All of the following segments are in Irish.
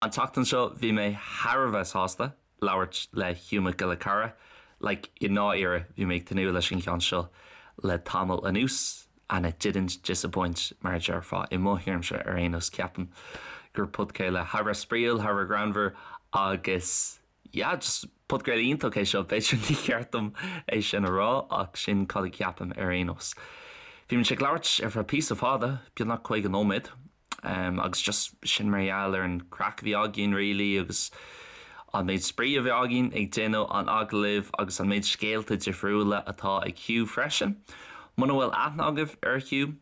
An tseachtain seo bhí mé thar a bheith sásta labhairt le Hugh Mac Giolla Chearra. Like, i ndáiríre, bhí mé ag tnúth leis an cheann seo le tamall anuas and it didn't disappoint mar a déarfá. I mo thuairimse ar aon nós ceapaim gur podchraoladh thar a bheith spraíúil, thar a bheith greannmhar agus yeah, just podchraoladh iontach é seo. B'fhéidir ní cheart dom é sin a rá ach sin cad a cheapaim ar aon nós. Bhí muid ag labhairt ar feadh píosa fada, beagnach 50 nóiméad. agus just sin mar gheall ar an craic a bhí againn really agus an méid spraoi a bhí againn ag déanamh an agallaimh agus an méid scéalta difriúla atá ag Hugh freisin. Muna bhfuil aithne agaibh ar Hugh,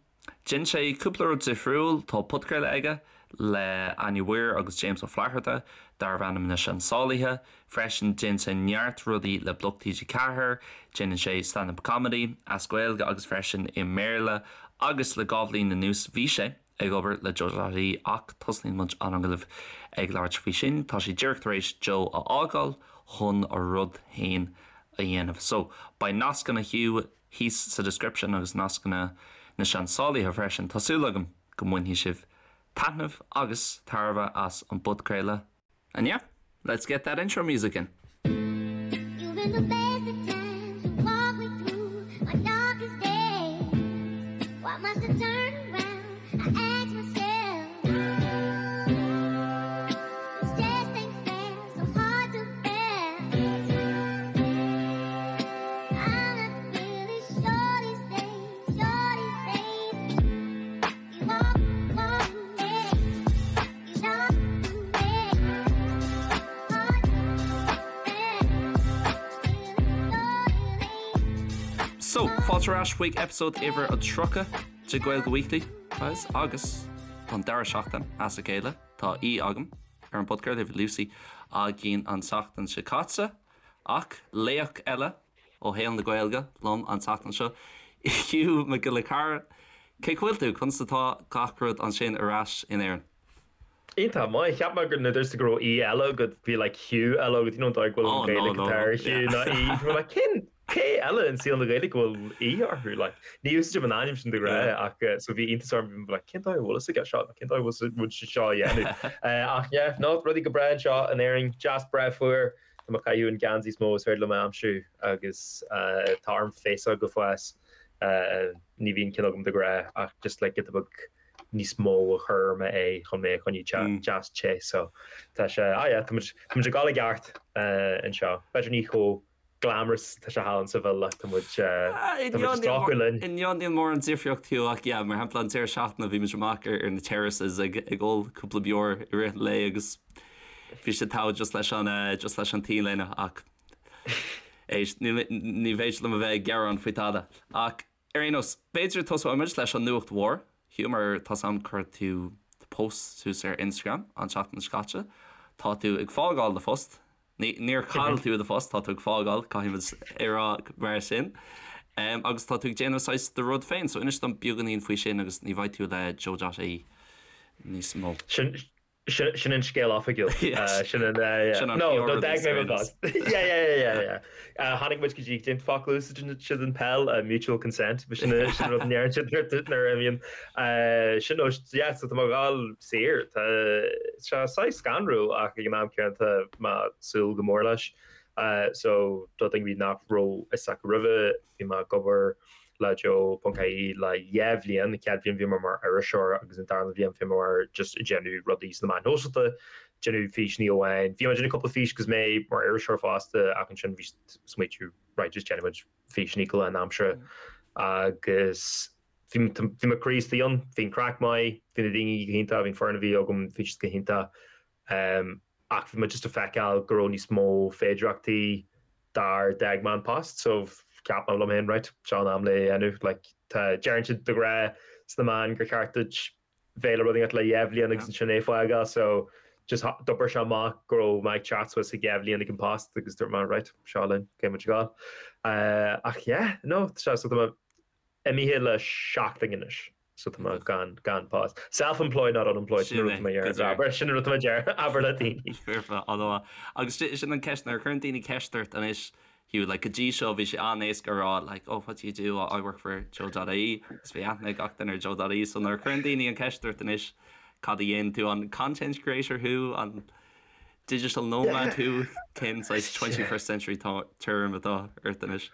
déanann sé cúpla rud difriúil, tá podchraoladh aige le Áine Mhaoir agus James Ó Flatharta darbh ainm Na Seansálaithe, freisin déanann sé neart rudaí le Bloc TG4, déanann sé stand up comedy as Gaeilge agus freisin i mBéarla agus le 2 bhliain anuas bhí sé ag obair le Joe.ie ach tosnaíonn muid an agallamh ag labhairt faoi sin. Tá sé díreach tar éis Joe a fhágáil chun a rud féin a dhéanamh. So, beidh nascanna Hugh thíos sa description agus nascanna na Seansálaithe freisin. Tá súil agam go mbainfidh sibh taitneamh agus tairbhe as an bpodchraoladh. And yeah, let's get that intro music in. You've been the best of times to walk me through my darkest days. Why must I turn around? I ask myself. This just ain't fair, so hard to bear. I'm not really sure these days, sure these days. You walk, walk, yeah. You know, yeah. Hard to bear. So, fáilte ar ais chuig episode uimhir a 30 de Gaeilge Weekly, guys, agus don dara seachtain as a chéile tá aoi agam ar an bpodchraoladh, bhí Lucy againn an tseachtain seo caite, ach laoch eile ó shaol na Gaeilge liom an tseachtain seo, Hugh Mac Giolla Chearra. Cén chaoi a bhfuil tú? Conas atá gach rud ansin ar ais in Éirinn? Iontach maith. Cheap mé gur nuair a dúirt tú go raibh aoi eile agat, bhí like Hugh eile agat, you know an dóigh go bhfuil an Ghaeilge atá ar Hugh ná aoi. Bhí mé like cén cé eile in saol na Gaeilge go bhfuil aoi orthu? Like ní úsáidim an ainm sin de ghnáth ach so bhí iontas orm, bhí mé like cén dóigh a bhfuil fhios aige seo? Cén dóigh a bhfuil sé seo a dhéanamh? Ach yeah, no, rudaí go breá anseo in Éirinn, deas breá fuar. Tá mé ag caitheamh an geansaí is mó is féidir liom a aimsiú agus tá orm féasóg a fhás. Ní bhíonn ceann agam de ghnáth ach just like giota beag níos mó a chur ar m'aghaidh chun mé a choinneáil deas te. So tá sé, ah yeah, tá muid, tá muid ag dul i gceart anseo. B'fhéidir ní chomh glamorous tá sé thall in Seville ach tá muid, tá muid ag stracadh linn. Inniu níl mórán difríocht Hugh ach yeah, mar shampla an deireadh seachtaine bhí muid amach ar na terraces ag ag ól cúpla beoir i rith an lae agus bhí sé togha just leis an just leis an t-léine ach éist ní ní féidir liom a bheith ag gearán faoi tada. Ach ar aon nós, b'fhéidir tosóidh muid leis an nuacht mhór, Hugh, mar tá 's a'm chuir tú post suas ar Instagram an tseachtain seo caite. Tá tú ag fágáil do phost. Ní, níor chaill tú do phost, tá tú ag fágáil, caithfidh muid a rá mar sin. Um, agus tá tú ag déanamh saghas do rud féin, so inis dom beagáinín faoi sin agus ní bheidh tú le Joe.ie níos mó. Sin, sin, sin an scéal oifigiúil. Yes. Sin an, uh, yeah. Sin an No, no, d'fhág mé mo phost. Yeah, yeah, yeah, yeah, yeah. Uh, tháinig muid go dtí cén focal a úsáideann siad in peil, uh, mutual consent, sin sin an rud a ndeireann siad nuair a bhíonn. Uh, sin nó, yeah, so tá mé ag dul saor. Tá sé saghas scanrúil ach ag an am céanna tá mé ag súil go mór leis. Uh, so do dhaoine nach raibh fhios acu roimhe, bhí mé ag obair le Joe.ie le dhá bhliain, an chéad bhliain bhí mé mar iriseoir agus an darna bhliain bhí mé mar just ag déanamh rudaí sna meáin shóisialta, déanamh físeanna amháin. Bhí mé ag déanamh cúpla fís agus mé mar iriseoir fosta ach ansin bhí smaoitiú right just déanfaidh muid físeanna go lánaimseartha agus bhí bhí mo chroí istigh ann, bhí an craic maith, bhí na daoine go hiontach, bhí an foireann a bhí agam, bhí siad go hiontach. Ach bhí mé just ag feiceáil go raibh níos mó féidireachtaí dár d'fhág mé an post so cheap mé liom féin right seo an am le é a dhéanamh like tá deireann siad de ghnáth sna meáin gur cheart duit bheith le rud éigin le dhá bhliain agus ansin é fágáil so just d'oibir sé amach go raibh mé ag teacht suas ag dhá bhliain ag an post agus dúirt mé right seo linn caithfidh muid a ghabháil ach yeah no tá sé so tá mé imithe le seachtain anois So tá mé gan, gan post. Self-employed not unemployed, sin an rud atá mé ag iarraidh abair, sin an rud atá mé ag iarraidh abair le daoine. Foirfe, an-mhaith. Agus sin an ceist, nuair a chuireann daoine ceist ort anois, Hugh, like go dtí seo bhí sé an-éasca a rá like oh what do you do, I work for Joe.ie agus bhí aithne ag gach duine ar Joe.ie so nuair a chuireann daoine an ceist ort anois. cad a dhéanann tú, an content creator thú, an digital nomad thú, cén saghas 21st century term atá ort anois?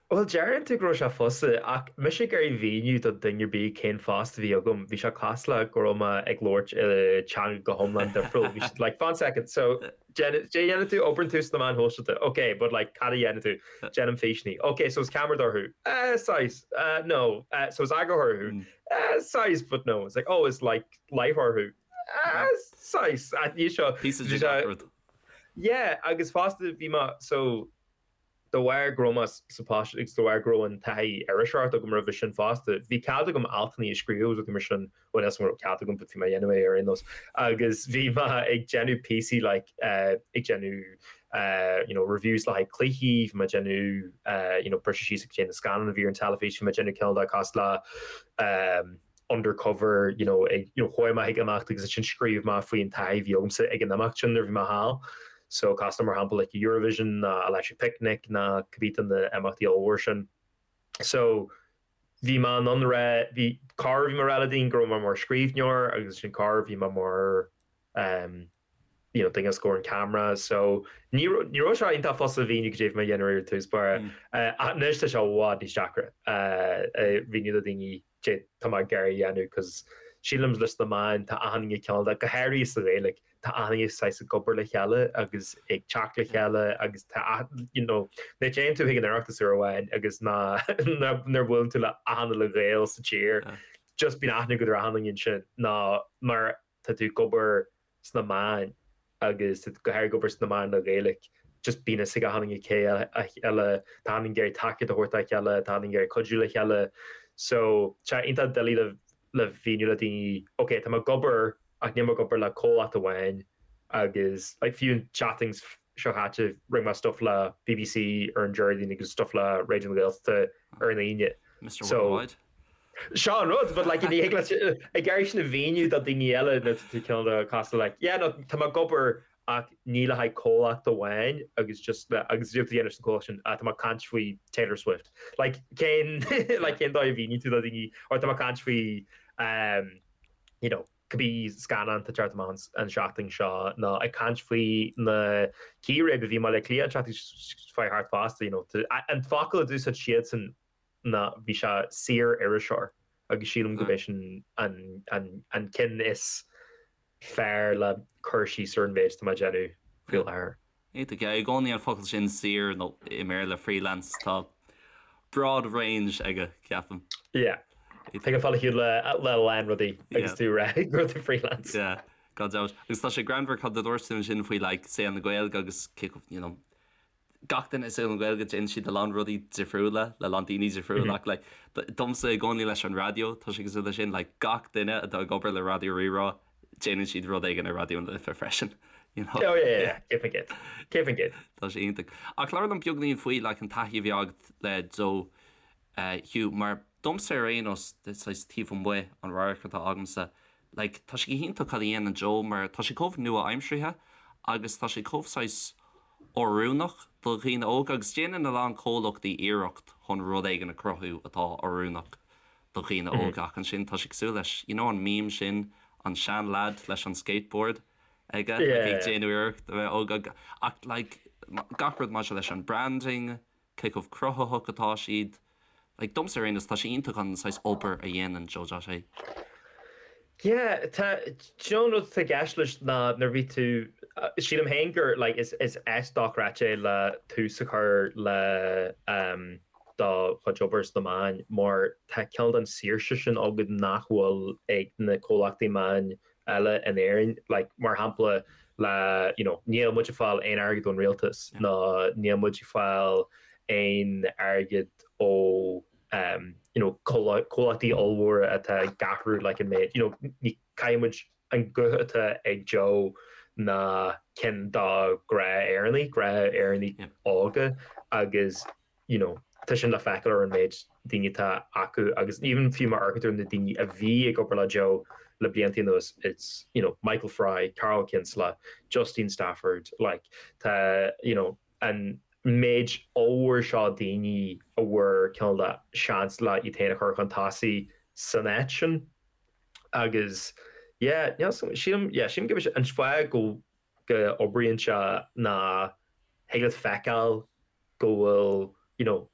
Bhuel, deireann tú go raibh sé fusa, ach mise ag iarraidh mhíniú do dhuine ar bith cén post a bhí agam, bhí sé cosúil le go raibh mé ag labhairt i teanga go hiomlán difriúil. Bhí siad like, fan second, so déanann tú, oibreann tú sna meáin shóisialta, ok, but like cad a dhéanann tú? Déanaim físeanna. Ok, so is ceamaradóir thú? Eh, saghas, eh, no. Eh, so is eagarthóir thú? Eh, saghas, but no. It's like, oh, is like láithreoir thú? Eh, saghas. Ní seo. Píosa de gach rud. Yeah, agus fosta bhí mé, so, De bharr go raibh mé sa phost agus de bharr go raibh an taithí iriseoireachta agam roimhe sin fosta, bhí cead agam altanna a scríobh agus rudaí mar sin, bhuel níl 's agam an raibh cead agam but bhí mé a dhéanamh é ar aon nós, agus bhí mé ag déanamh píosaí like ag déanamh you know reviews le haghaidh cluichí, bhí mé ag déanamh you know briseadh síos ag déanamh na scannán a bhí ar an teilifís, bhí mé ag déanamh cineál de cosúil le undercover you know ag you know chuaigh mé chuig imeacht agus ansin scríobh mé faoin taithí a bhí agamsa ag an imeacht sin nuair a bhí mé thall. So cosúil le mar shampla like Eurovision ná Electric Picnic ná cibé de na imeachtaí ollmhór sin. So bhí mé in ann a rá bhí corruair bhí mé ag rá le daoine go raibh mé mar scríbhneoir agus ansin corruair bhí mé mar um, you know, duine os comhair an camera so ní ní raibh sé iontach fusa a mhíniú cad é a bhí mé a dhéanamh ar dtús báire. Ach anois tá sé i bhfad níos deacra a mhíniú do daoine cad é tá mé ag iarraidh a dhéanamh cos sílim leis na meáin tá achan duine cineál de, go háirithe sa Ghaeilge, tá achan duine saghas ag obair le chéile agus ag teacht le chéile agus tá you know, nuair a théann tú chuig an Oireachtas uair amháin agus ná nuair a bhuaileann tú le achan uile Ghael sa tír just bíonn aithne agat ar achan duine ansin ná mar tá tú ag obair sna meáin agus tá tú go háirithe ag obair sna meáin le Gaeilge, just bíonn fhios ag achan duine cé eile, tá achan duine ag iarraidh tacaíocht a thabhairt dá chéile, tá achan duine ag iarraidh cuidiú le chéile. So, tá sé iontach doiligh le le mhíniú le daoine, ok, tá mé ag obair ach níl mé ag obair le comhlacht amháin agus like fiú an tseachtain seo chaite rinne mé stuff le BBC ar an Déardaoin agus stuff le Raidió na Gaeltachta ar an Aoine. Mr Worldwide. Seo an rud, but like ní thig leat ag iarraidh sin a mhíniú do daoine eile nuair tá tú cineál de cosúil like yeah no tá mé ag obair ach ní le haghaidh comhlacht amháin agus just le agus cad é atá tú a dhéanamh leis an comhlacht sin ah tá mé ag caint faoi Taylor Swift like cén like cén dóigh a mhíníonn tú do daoine or tá mé ag caint faoi um, you know cibé scannán atá ag teacht amach an seachtain seo nó ag caint faoi na círéib a bhí i mBaile Átha Cliath an tseachtain seo thart fosta you know an focal a d'úsáid siadsan ná bhí sé saor-iriseoir agus sílim gurb é sin an ceann is fearr le cur síos ar an mhéid atá mé ag déanamh faoi láthair. Iontach, yeah. I gcónaí an focal sin saor nó i mBéarla freelance tá broad range aige ceapaim. Yeah. Thig a fáil a shiúl le a lán rudaí agus tú ag rá go bhfuil tú freelance. Yeah, gan dabht. Agus tá sé greannmhar cad a dúirt tú ansin faoi like saol na Gaeilge agus cé chomh, you know, gach duine i saol na Gaeilge déanann siad a lán rudaí difriúla le lán daoine difriúla ach like domsa i gcónaí leis an raidió tá sé cosúil leis sin like gach duine atá ag obair le Raidió Rí-Rá déanann siad rud éigin ar Raidió na Life freisin you know? Oh yeah, yeah, yeah. 100%. 100%. Tá sé iontach. Ach labhair liom beagainín faoi like an taithí a bhí agat le Joe uh, Hugh mar domsa ar aon nós saghas taobh amuigh an radharc atá agamsa Like, tá sé go hiontach cad a dhéanann Joe mar tá sé chomh nua-aimseartha agus tá sé chomh saghas oiriúnach do dhaoine óga agus déanann a lán comhlachtaí iarracht chun rud éigin a chruthú atá oiriúnach do dhaoine óga ach ansin tá sé cosúil leis, you know an meme sin, an sean-leaid leis an skateboard aige like ag déanamh iarracht a bheith óg ach like gach rud maidir leis an branding, cé chomh cruthaitheach atá siad. Like, domsa ar aon nós, tá sé iontach an saghas obair a dhéanann Joe dot ie. Yeah, tá, do you know an rud atá i gceist leis ná nuair a bhí tú, sílim féin gur like is is áit dochreidte é le tús a chur le um, do chuid obair sna meáin mar tá cineál den saoirse sin agat nach bhfuil ag na comhlachtaí meáin eile in Éirinn, like mar shampla le you know níl muid ag fáil aon airgead ón rialtas ná níl muid ag fáil aon airgead ó um you know comhlachtaí ollmhóra atá ag athrú like an méid you know ní caithfidh muid an guth atá ag Joe ná ceann do ghnáth-Éireannaigh, gnáth-Éireannaigh óga agus you know, tá sin le feiceáil ar an méid daoine atá acu agus even fiú má amharcann tú ar na daoine a bhí ag obair le Joe le blianta anuas, it's, you know, Michael Fry, Karl Kinsella, Justine Stafford, like, tá, you know, an méid ollmhór seo daoine a bhfuair cineál de seans le iad féin a chur chun tosaigh san áit sin agus. Yeah, níl 's agam, sílim, yeah, sílim gurb é an fáth go go oibríonn sé ná thig leat feiceáil go bhfuil, you know,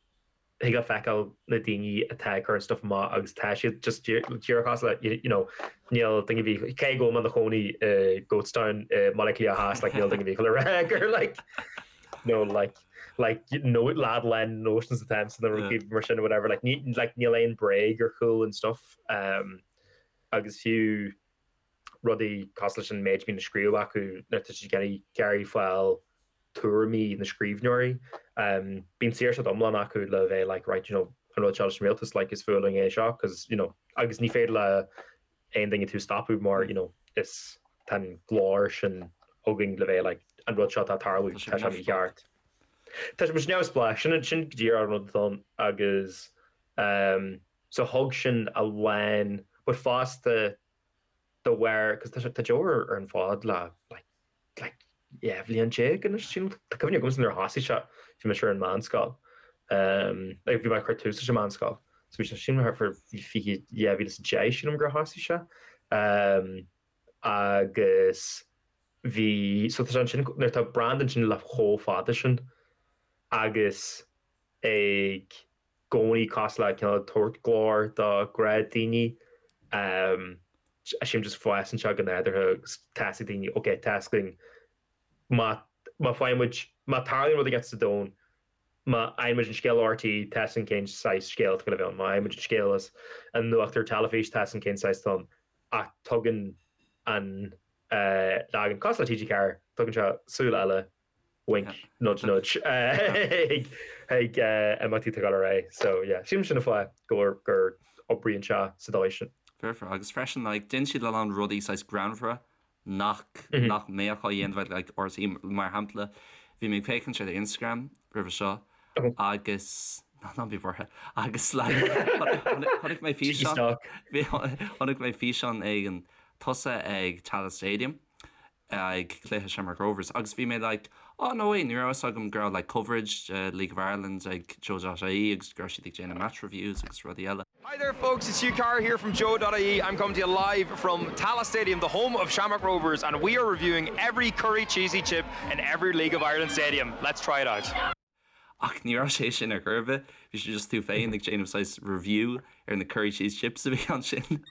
thig leat feiceáil na daoine atá ag cur an stuff amach agus tá siad just díreach cosúil le, you know, níl duine ar bith, cé go bhfuil mé i mo chónaí i Goatstown i mBaile Átha Cliath Theas, like, níl duine ar bith le rá gur like, no, like, like, no, lad lán notions atá ionam nó rudaí mar sin or whatever, like, ní, like, níl aon bréag ar chúl an stuff, um, agus fiú rudaí cosúil leis an méid a bhíonn á scríobh acu nuair atá siad ag iarraidh fáil tuairimí na scríbhneoirí. Bíonn saoirse iomlán acu le bheith like right you know an rud seo leis an rialtas like is fuath linn é seo cos you know agus ní féidir le aon duine tú stopadh mar you know is tá an glór sin againn le bheith like an rud seo atá ag tarlú tá sé mícheart. Tá sé neamhspleách sin sin go díreach an rud atá ann agus um, So thug sin a lán but fosta de bharr cos tá sé tá Joe ar ar an bhfód le like like 12 bhliain anois sílim tá cuimhne agamsa nuair a thosaigh sé bhí mise ar an meánscoil um like bhí mé ag cur tús leis an meánscoil so bhí sé sílim thart fá 20 2010 sílim gur thosaigh sé um agus bhí so tá sé ansin nuair atá brand ansin le chomh fada sin agus ag gcónaí cosúil le cineál tabhairt glór do ghnáthdhaoine. Sílim just fásann sé go nádúrtha agus tá 'fhios ag daoine ok tá 'fhios againn má má faigheann muid má tarlaíonn rud éigin sa domhan má fhaigheann muid an scéal ó RTÉ tá 'fhios againn cén saghas scéal atá le bheith ann má fhaigheann muid an scéal as an nuacht ar teilifís tá 'fhios againn cén saghas atá ann ach tugann an leagan cosúil le TG4 tugann sé súil eile Wink, nudge nudge ag imeachtaí atá ag dul ar aghaidh. So yeah, sílim sin an fáth gur gur oibríonn sé sa dóigh sin. Fair fair. Agus freisin like déanann siad a lán rudaí saghas greannmhara nach nach mbeadh á dhéanamh ag like RTÉ mar shampla bhí mé ag féachaint ar Instagram roimhe seo agus ná ná bí buartha agus like chonaic mé físeán chonaic mé físeán éigin tusa ag Tallaght Stadium ag cluiche Shamrock Rovers agus bhí mé like oh no way ní raibh fhios agam go raibh like coverage de League of Ireland ag Joe.ie agus go raibh siad ag déanamh match reviews agus rudaí eile. Hi there folks, it's Hugh Carr here from Joe.ie. I'm coming to you live from Tallaght Stadium, the home of Shamrock Rovers, and we are reviewing every curry cheesy chip in every League of Ireland stadium. Let's try it out. Ach ní raibh sé sin ar chor ar bith, bhí sé just tú féin ag déanamh saghas review ar na curry cheese chips a bhí ansin.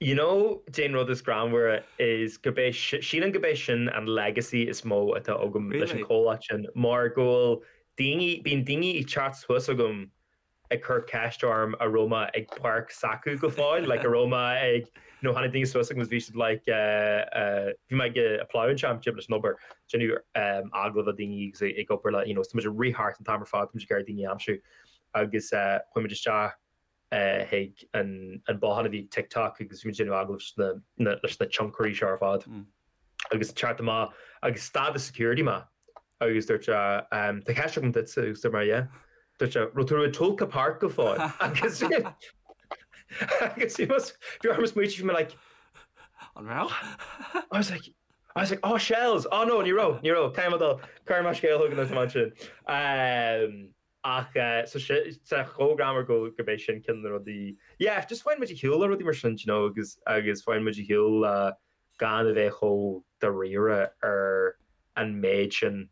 You know cén rud is greannmhaire is gurb é sílim gurb é sin an legacy is mó atá agam leis an chomhlacht sin mar go bhfuil daoine, bíonn daoine ag teacht suas chugam ag cur ceist orm a' raibh mé ag páirc s'acu go fóill, like a' raibh mé ag, you know, tháinig daoine suas chugam agus bhí siad like eh eh bhí mé ag a' Plough and Championship leis an obair, déanamh eh agallamh le daoine agus ag obair le, you know, tá muid ag rith thart an t-am ar fad, tá muid ag iarraidh daoine a aimsiú agus eh chuaigh muid isteach eh chuig an an bothán a bhí ag TikTok agus bhí muid ag déanamh agallamh leis na na leis na tionchairí seo ar fad. Agus teacht amach agus stad an security mé agus dúirt sé tá ceist agam duitse agus dúirt mé yeah. Dúirt sé raibh tú i Tolka Park go fóill agus agus bhí bhí orm smaoitiú bhí mé like An raibh? I was like I was like oh shells oh no ní raibh ní raibh caithfidh mé dul cuirfidh mé scéal chugat nuair atá mé ansin. Ach so sé chomh greannmhar go gurb é sin ceann de na rudaí yeah just faigheann muid ar shiúl le rudaí mar sin you know agus agus faigheann muid ar shiúl le gan a bheith chomh dáiríre ar an méid sin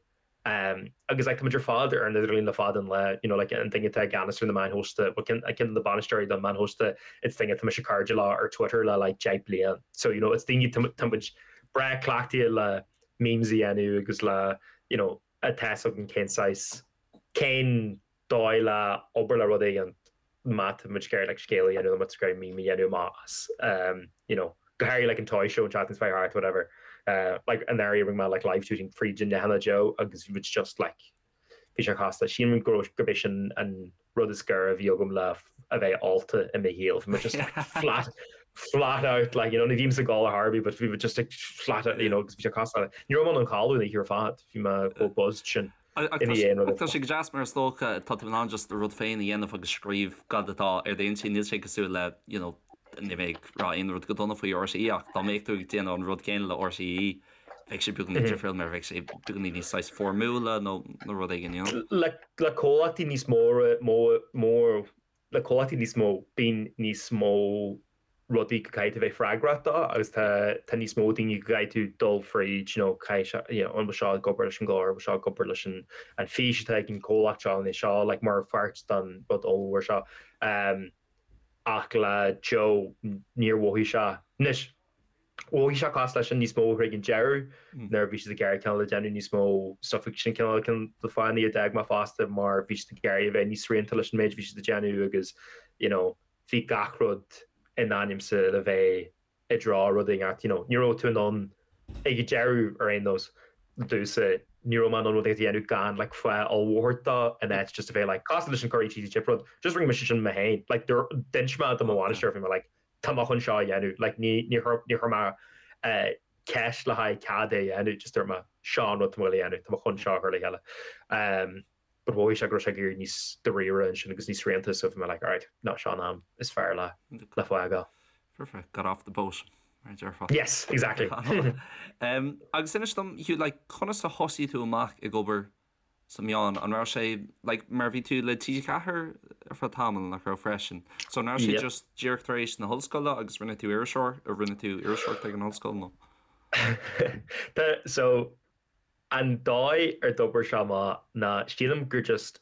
um agus like tá muid ar fad ar an idirlíon le fada an lá you know like an duine atá i gceannas ar na meáin shóisialta well ceann ceann de na bainisteoirí don meáin shóisialta it's duine atá mise cairde leo ar Twitter le like 10 bliain so you know it's daoine tá muid breá cleachtaithe le memes a dhéanamh agus le you know tá 'fhios againn cén saghas, cén dóigh le obair le rud éigin má tá muid ag iarraidh like scéal a dhéanamh nó má tá muid ag iarraidh meme a dhéanamh amach as um you know go háirithe like an toy show an tseachtain seo thart whatever uh like anuraidh rinne mé like live tweeting fríd an leathanach Joe agus bhí muid just like bhí sé casta sílim go gurb é sin an rud is gaire a bhí agam le a bheith ólta i mo shaol. Bhí mé just like flat flat out like you know ní bhím ag ól ar chor ar bith but bhí mé just like flat out you know agus bhí sé casta. Ní raibh mé in ann codladh an oíche ar fad, bhí mé chomh buzzed sin ina dhiaidh an rud. Tá sé go deas mar is dócha tá tú in ann just rud féin a dhéanamh agus scríobh cad atá ar d'intinn. Níl sé cosúil le you know níl mé ag rá aon rud go dona faoi RTÉ ach dá mbeadh tú ag déanamh an rud céanna le RTÉ bheadh sé beagáinín difriúil mar bheadh sé beagáinín níos saghas foirmiúla nó nó rud éigin, you know. Le le comhlachtaí níos mó mó le comhlachtaí níos mó bíonn níos mó. rudaí go gcaithfidh tú bheith freagrach dó agus tá tá níos mó daoine go gcaithfidh tú dul fríd, you know, caithfidh sé, you know, an bhfuil seo ag obair leis an gclár, an bhfuil seo ag obair leis an an fís atá ag an comhlacht seo, an é seo like mar pháirt den rud ollmhór seo. Um, ach le Joe níor mhothaigh sé, anois, mhothaigh sé cosúil leis sin níos mó chuig an deireadh nuair a bhí siad ag iarraidh cineál a déanamh níos mó stuff agus sin cineál ceann de na fáthanna a d'fhág mé fosta mar bhí siad ag iarraidh a bheith níos srianta leis an méid a bhí siad ag déanamh agus you know, bhí gach rud in ainmse le bheith i dtreo rud éigin, you know, ní raibh tú in ann, ag an deireadh ar aon nós, domhsa, ní raibh mé in ann rud éigin a dhéanamh gan like fáth ollmhór a thabhairt dó in áit just a bheith like cosúil leis an curry cheesy chip rud, just rinne mise sin mé féin, like d'inis mé do mo bhainisteoir, bhí mé like tá mé chun seo a dhéanamh, like ní ní chuir ní chuir mé eh ceist le haghaidh cead é a dhéanamh, just dúirt mé seo an rud tá mé a dhéanamh, tá mé chun seo a chur le chéile. Um, but mhothaigh sé go raibh sé ag éirí níos dáiríre ansin agus níos srianta so bhí mé like alright, no, seo an am is fearr le le fágáil. Perfect, got off the boat, mar a déarfá. Yes, exactly. um, agus inis dom, Hugh, like, conas a thosaigh tú amach ag obair sna meáin? An raibh sé, like, mar bhí tú le TG4 ar feadh tamaill, nach raibh freisin? So an raibh sé just díreach tar éis na hollscoile agus rinne tú iriseoir, a rinne tú iriseoireacht ag an ollscoil nó? So An dóigh ar d'obair sé amach ná sílim gur just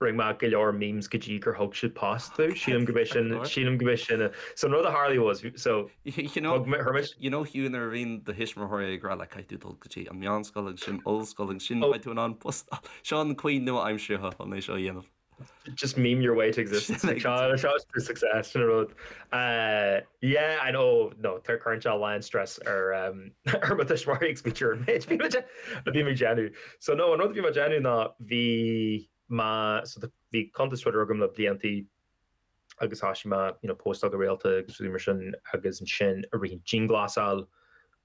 rinne mé go leor memes go dtí gur thug siad post domh. Sílim go b'é sin, sílim go b'é sin a, so an rud a tharlaigh was, so You know, thug mé, chuir mise, you know Hugh nuair a bhíonn do thuismitheoirí ag rá like caithfidh tú dul go dtí an meánscoil agus sin ollscoil agus sin oh. beidh tú in ann post, seo an chaoi nua-aimseartha chun é seo a dhéanamh. Just meme your way to existence. Seo seo to success sin an rud. Uh, yeah, I know, no, tá cuireann sé a lán stress ar um, ar mo thuismitheoirí ag smaoitiú ar an méid bhí mé a bhí mé ag déanamh. So no, an rud a bhí mé ag déanamh ná bhí mé so bhí cuntas Twitter agam le bliantaí agus thoisigh mé you know, postáil go rialta agus rudaí mar sin agus ansin i rith an dianghlasáil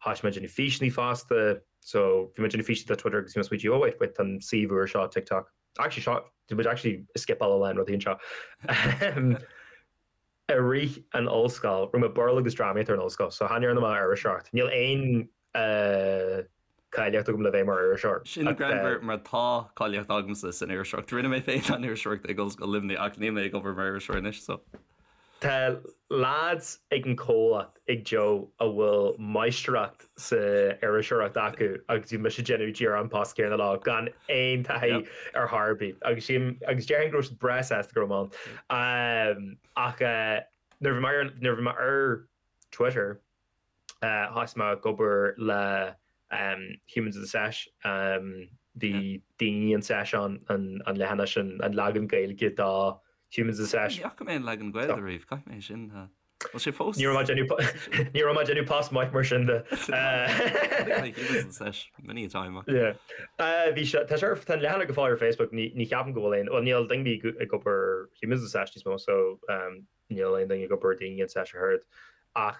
thoisigh mé ag déanamh físeanna fosta. So bhí mé ag déanamh físeanna do Twitter agus bhí mé ag smaoitiú, oh wait, wait, tá an suíomh úr seo TikTok. Actually seo, tá muid actually ag scipeáil a lán rudaí anseo. I rith an ollscoil, rinne mé Béarla agus drámaíocht ar an ollscoil, so chan dhearna mé iriseoireacht. Níl aon cáilíocht agam le bheith mar iriseoir. Sin greannmhar mar tá cáilíocht agamsa san iriseoireacht. Rinne mé féin an iriseoireacht ag Ollscoil Luimnigh ach níl mé ag obair mar iriseoir anois, so. Tá lads ag an comhlacht ag Joe a bhfuil máistreacht sa iriseoireacht acu agus bhí mise ag déanamh díreach an post céanna leo gan aon taithí ar chor ar bith agus sílim agus déarfainn go raibh siad breá sásta go raibh mé ann. Ach nuair a bhí mé ar nuair a bhí mé ar Twitter Thosaigh mé ag obair le Humans of the Sesh, bhí Daoine an Sesh ann, an leathanach sin, an leagan Gaeilge do Humans of the Sesh. Ní fhaca mé an leagan Gaeilge riamh, caithfidh mé sin a. Bhfuil sé fós? Ní raibh mé ag déanamh ní raibh mé ag déanamh post maith mar sin de. Humans of the Sesh many a time. Yeah. Bhí sé, tá sé ar, tá an leathanach go fóill ar Facebook, ní ní cheapaim go bhfuil aon, bhuel níl daoine ag obair Humans of the Sesh níos mó so Níl aon duine ag obair Daoine an Sesh ach oiread. Ach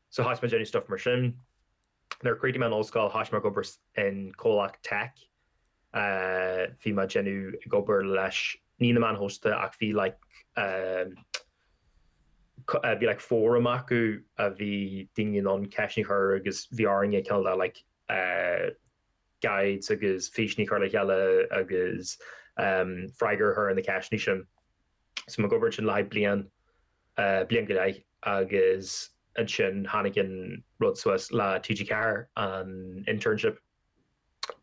so thosaigh mé ag déanamh stuff mar sin. Nuair a chríochnaigh mé an ollscoil thosaigh mé ag obair in comhlacht tech. Bhí mé ag déanamh ag obair leis ní na meáin shóisialta ach bhí like bhí like fóram acu a bhí daoine in ann ceisteanna a chur agus bhí orainne cineál de like guides agus físeanna a chur le chéile agus freagra a chur ar na ceisteanna sin. So mé ag obair ansin le haghaidh bliain, bliain go leith agus ansin tháinig an rud suas le TG4, an internship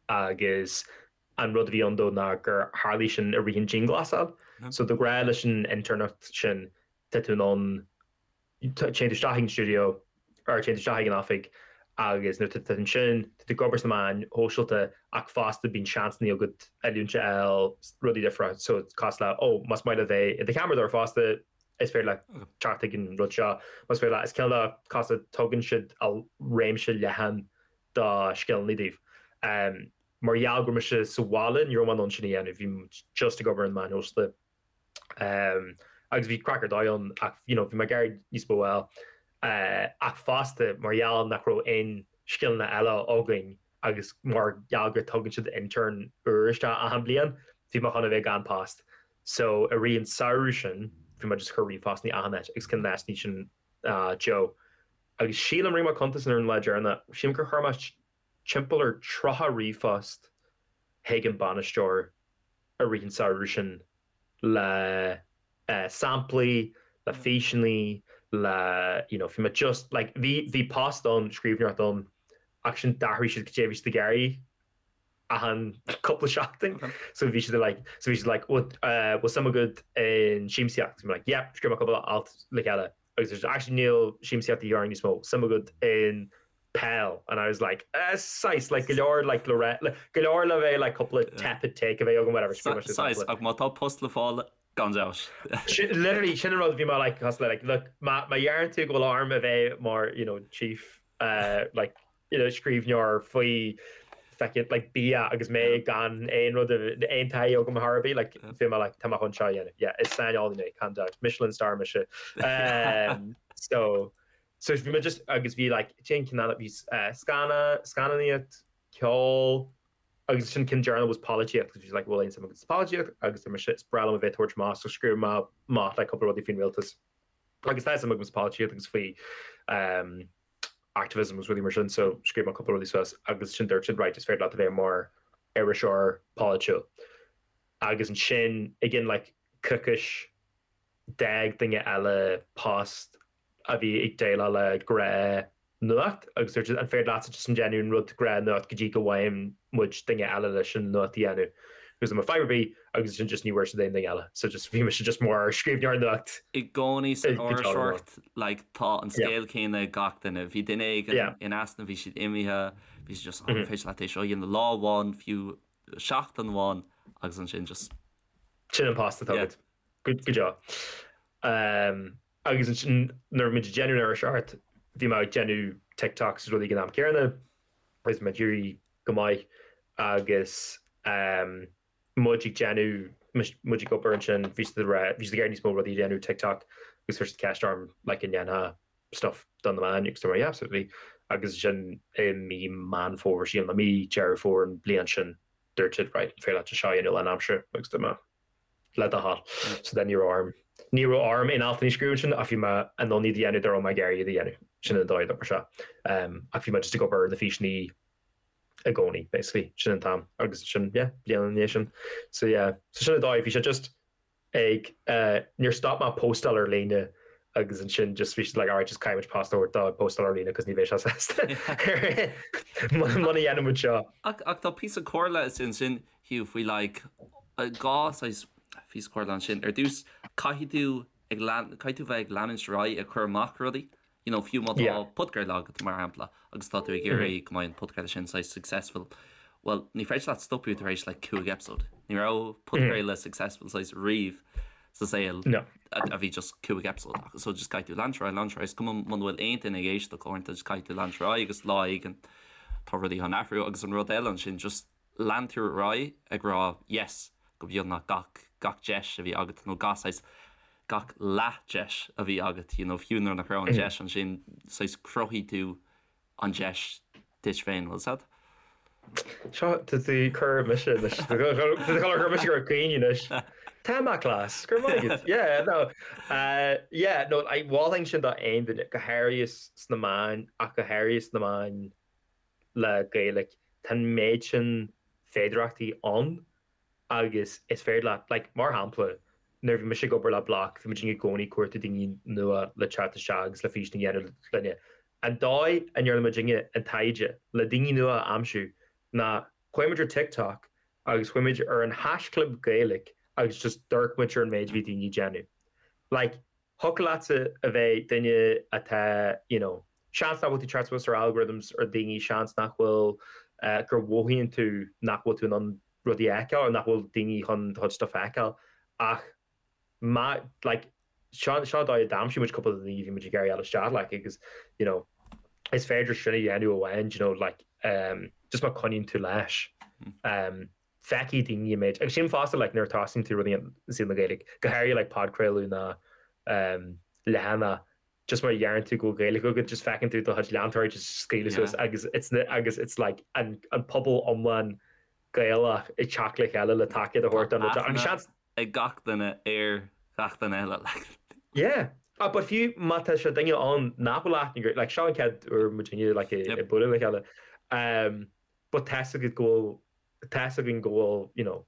agus an rud a bhí ann dó ná gur tharlaigh sin i rith an dianghlasáil. So de ghnáth leis an internacht sin tá tú in ann Téann tú isteach ag an stiúideo or téann tú isteach ag an oifig agus nuair atá tú ansin, tá tú ag obair sna meáin shóisialta ach fosta bíonn seansanna agat oiliúint a fháil, rudaí difriúla. So cosúil le, oh, más maith leat bheith i do cheamaradóir fosta, is féidir leat teacht ag an rud seo. Más féidir leat, is cineál de cosúil le tugann siad réimse leathan de scileanna daoibh. Mar gheall go raibh mise sa bhaile, ní raibh mé in ann sin a dhéanamh, bhí just ag obair ar na meáin shóisialta. Agus bhí craic ar dóigh ann ach you know bhí mé ag iarraidh níos mó a fháil. Ach fosta mar gheall nach raibh aon scileanna eile againn agus mar gheall gur tugann siad intern úr isteach achan bliain, bhí mé chun a bheith gan post. So i rith an samhradh sin bhí mé just ag cur ríomhphostanna achan áit agus ceann de na háiteanna sin Joe. Agus sílim, rinne mé cuntas ar an lá deireanach, sílim gur chuir mé timpeall ar 30 ríomhphost chuig an bainisteoir i rith an samhradh sin le samplaí, le físeanna, Le you know bhí mé just like bhí bhí post ann scríbhneoireacht ann ach sin d'athraigh siad goidé a bhí siad ag iarraidh achan cúpla seachtain so bhí siad like so bhí siad like bhfuil uh, bhfuil suim agat in siamsaíocht so like yeah scríobh mé cúpla alt le chéile agus there's actually níl siamsaíocht a dhíth orainn níos mó suim agat in peil and I was like eh saghas like go leor like le re go leor le bheith like cúpla tepid take a bheith agam whatever scríobh mé Saghas ach má tá post le fáil Gan dabht. Literally sin an rud bhí mé like cosúil le like look má má dheireann tú go bhfuil orm a bheith mar you know chief uh, like you know scríbhneoir faoi feckin like bia agus mé gan aon rud aon taithí agam ar bith like bhí mé like tá mé chun seo a dhéanamh yeah is saineolaí mé gan dabht Michelin star mise um, so so bhí mé just agus bhí like cén ceann bhí uh, scanna scannánaíocht ceol Agus sin ceann deireanach was polaitíocht agus bhí siad like bhfuil aon suim agat sa pholaitíocht agus dúirt mise is breá liom a bheith ag tabhairt amach so scríobh mé amach like cúpla rudaí faoin rialtas agus tá suim agam sa pholaitíocht agus faoi um, activism agus rudaí mar sin so scríobh mé cúpla rudaí suas agus sin dúirt siad right is féidir leat a bheith mar iriseoir polaitiúil agus ansin again like coicís d'fhág duine eile post a bhí ag déileáil le gnáth-nuacht agus dúirt siad an féidir leatsa just an déanamh an rud gnáth-nuacht go dtí go bhfaigheann muid duine eile leis an nuacht a dhéanamh agus dúirt mé fadhb ar bith agus ansin just ní bhfuair siad aon duine eile so just bhí mise just mar scríbhneoir nuacht I gcónaí san iriseoireacht like tá an scéal céanna ag gach duine. Bhí duine éigin in easnamh, bhí siad imithe, bhí siad just an féidir leat é seo a dhéanamh lá amháin, fiú seachtain amháin agus ansin just. Sin an post atá agat. Go deo. Agus ansin nuair a bhí muid ag déanamh an iriseoireacht, bhí mé ag déanamh TikToks is rudaí ag an am céanna agus mé ag éirí go maith agus muid ag déanamh, muid ag obair ansin, bhí siad ag rá, bhí siad ag iarraidh níos mó rudaí a dhéanamh TikTok agus chuir siad ceist orm like an ndéanfá stuff do na meáin agus dúirt mé yeah absolutely agus ansin i mí Meán Fómhair, sílim, nó mí Deireadh Fómhair an bhliain sin dúirt siad right an féidir leat seo a dhéanamh lánaimseartha agus dúirt mé le do thoil. So then ní raibh orm, ní raibh orm aon altanna a scríobh ansin ach bhí mé in ann iad a dhéanamh dá raibh mé ag iarraidh iad a dhéanamh. Sin an dóigh a d'oibrigh sé. Ach bhí mé just ag obair ar na físeanna i gcónaí, basically. Sin an t-am. Agus sin, yeah, bliain ina dhiaidh sin. So yeah, so sin an dóigh, bhí sé just ag, níor stop mé postáil ar líne agus ansin just bhí siad like alright just caithfidh muid post a thabhairt dó ag postáil ar líne cos ní bheidh sé sásta muna dhéanann muid seo. Ach tá píosa comhairle ansin Hugh, faoi like dhá saghas píosa comhairle ansin. Ar dtús, caithfidh tú ag lean, caithfidh tú bheith ag leanúint ar aghaidh ag cur amach rudaí. You know, fiú má tá Yeah. podchraoladh agat, mar shampla, agus tá tú ag iarraidh go mbeidh an podchraoladh sin saghas successful, well, ní féidir leat stopadh tar éis like cúig episode. Ní raibh podchraoladh successful saghas riamh sa saol No. a a bhí just cúig episode acu. So just caithfidh tú leanúint ar aghaidh, leanúint ar aghaidh. Is cuma muna bhfuil aon duine ag éisteacht uaireanta, just caithfidh tú leanúint ar aghaidh agus lá éigin tá rudaí chun athrú. Agus an rud eile ansin, just lean tú ar aghaidh ag rá yes go beagnach gach gach deis a bhí agat nó gach saghas gach leath deis a bhí agat you know fiú nuair nach raibh an deis ansin saghas chruthaigh tú an deis duit féin bhfuil 's agat? Seo tá tú ag cur mise anois tá tú ag cur mise gur caoin anois. Tá mé class go raibh maith agat yeah no uh, yeah no I mholfainn sin do aon duine go háirithe sna meáin ach go háirithe sna meáin le Gaeilge, tá an méid sin féidearthachtaí ann agus is féidir leat, like, mar shampla, nuair a bhí mise ag obair le Bloc, bhí muid i gcónaí ag cuartú daoine nua le teacht isteach agus le físean a dhéanamh linne. An dóigh a ndearna muidinne an taighde le daoine nua a aimsiú ná chuaigh muid ar TikTok agus chuaigh muid ar an haischlib Gaeilge agus just d'amharc muid ar an méid a bhí daoine ag déanamh. Like, Thiocfadh leatsa a bheith duine atá, you know, seans nach bhfuil tú teacht suas ar algorithms ar daoine, seans nach bhfuil, gur mhothaíonn tú nach bhfuil tú in ann rudaí a fheiceáil, nach bhfuil daoine chun do chuid stuff a fheiceáil ach má, like, seo, seo an dóigh a d'aimsigh muid cúpla de na daoine a bhí muid ag iarraidh fháil isteach, like, agus, you know, is féidir sin a dhéanamh amháin, do you know, like, um, just má coinníonn tú leis. Um, feicfidh daoine an méid, agus sin fosta like nuair a tosaíonn tú rudaí i saol na Gaeilge, go háirithe like podchraoladh ná um, leathanach, just mar a dheireann tú go bhfuil Gaeilge agat, just feiceann tú do chuid leantóirí just scaoileadh suas agus it's agus it's like an, an pobal iomlán Gaelach ag teacht le chéile le tacaíocht a thabhairt don rud agus seans ag gach duine ar gach duine eile like. Yeah. Ah, but fiú má tá sé duine ann nach bhfuil aithne agat, like seo an chéad uair muidinne like ag bualadh le chéile, um, but tá's agat go bhfuil tá's againn go bhfuil, you know,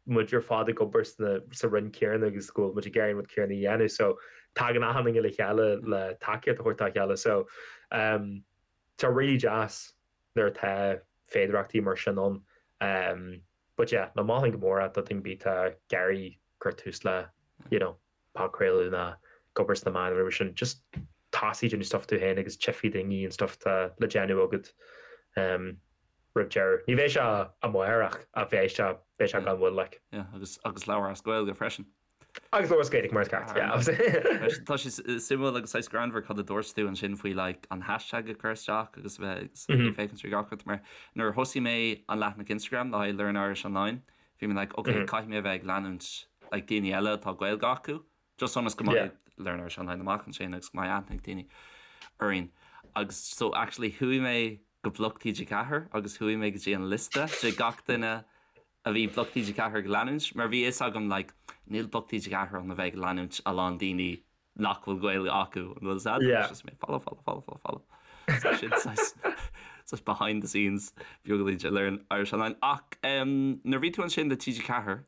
muid ar fad ag obair sna sa roinn céanna agus go bhfuil muid ag iarraidh an rud céanna a dhéanamh so tagann achan duine le chéile le tacaíocht a thabhairt dá chéile so um tá really deas nuair atá féidearthachtaí mar sin ann um but yeah no mholfainn go mór é do dhuine ar bith atá ag iarraidh cur tús le you know podchraoladh nó ag obair sna meáin nó mar sin just tosaigh déanamh stuff tú féin agus tchífidh daoine an stuff atá le déanamh agat um roimh deireadh. Ní bheidh sé amárach ach beidh sé beidh sé gan mhoill like. Yeah, agus agus labhair as Gaeilge freisin. Agus labhair as Gaeilge mar is ceart, yeah. Tá sé suimiúil agus saghas greannmhar cad a dúirt tú ansin faoi like an hashtag a chur isteach agus a bheith ag féachaint ar gach rud mar nuair a thosaigh mé an leathanach Instagram le haghaidh Learn Irish Online Bhí mé like ok caithfidh mé a bheith ag leanúint like daoine eile atá Gaeilge acu just ionas go mbeidh Learn Irish Online amach ansin agus go mbeidh aithne ag daoine orainn. Agus so actually chuaigh mé go Bloc TG4 agus chuaigh mé go dtí an liosta de gach duine a bhí Bloc TG4 ag leanúint mar bhí fhios agam like níl Bloc TG4 ann a bheith ag leanúint a lán daoine nach bhfuil Gaeilge acu, an bhfuil fhios a'd? Yeah. Just mé follow, follow, follow, follow, follow. So sin saghas saghas behind the scenes beagáinín de Learn Irish Online. Ach um, nuair a bhí tú ansin le TG4,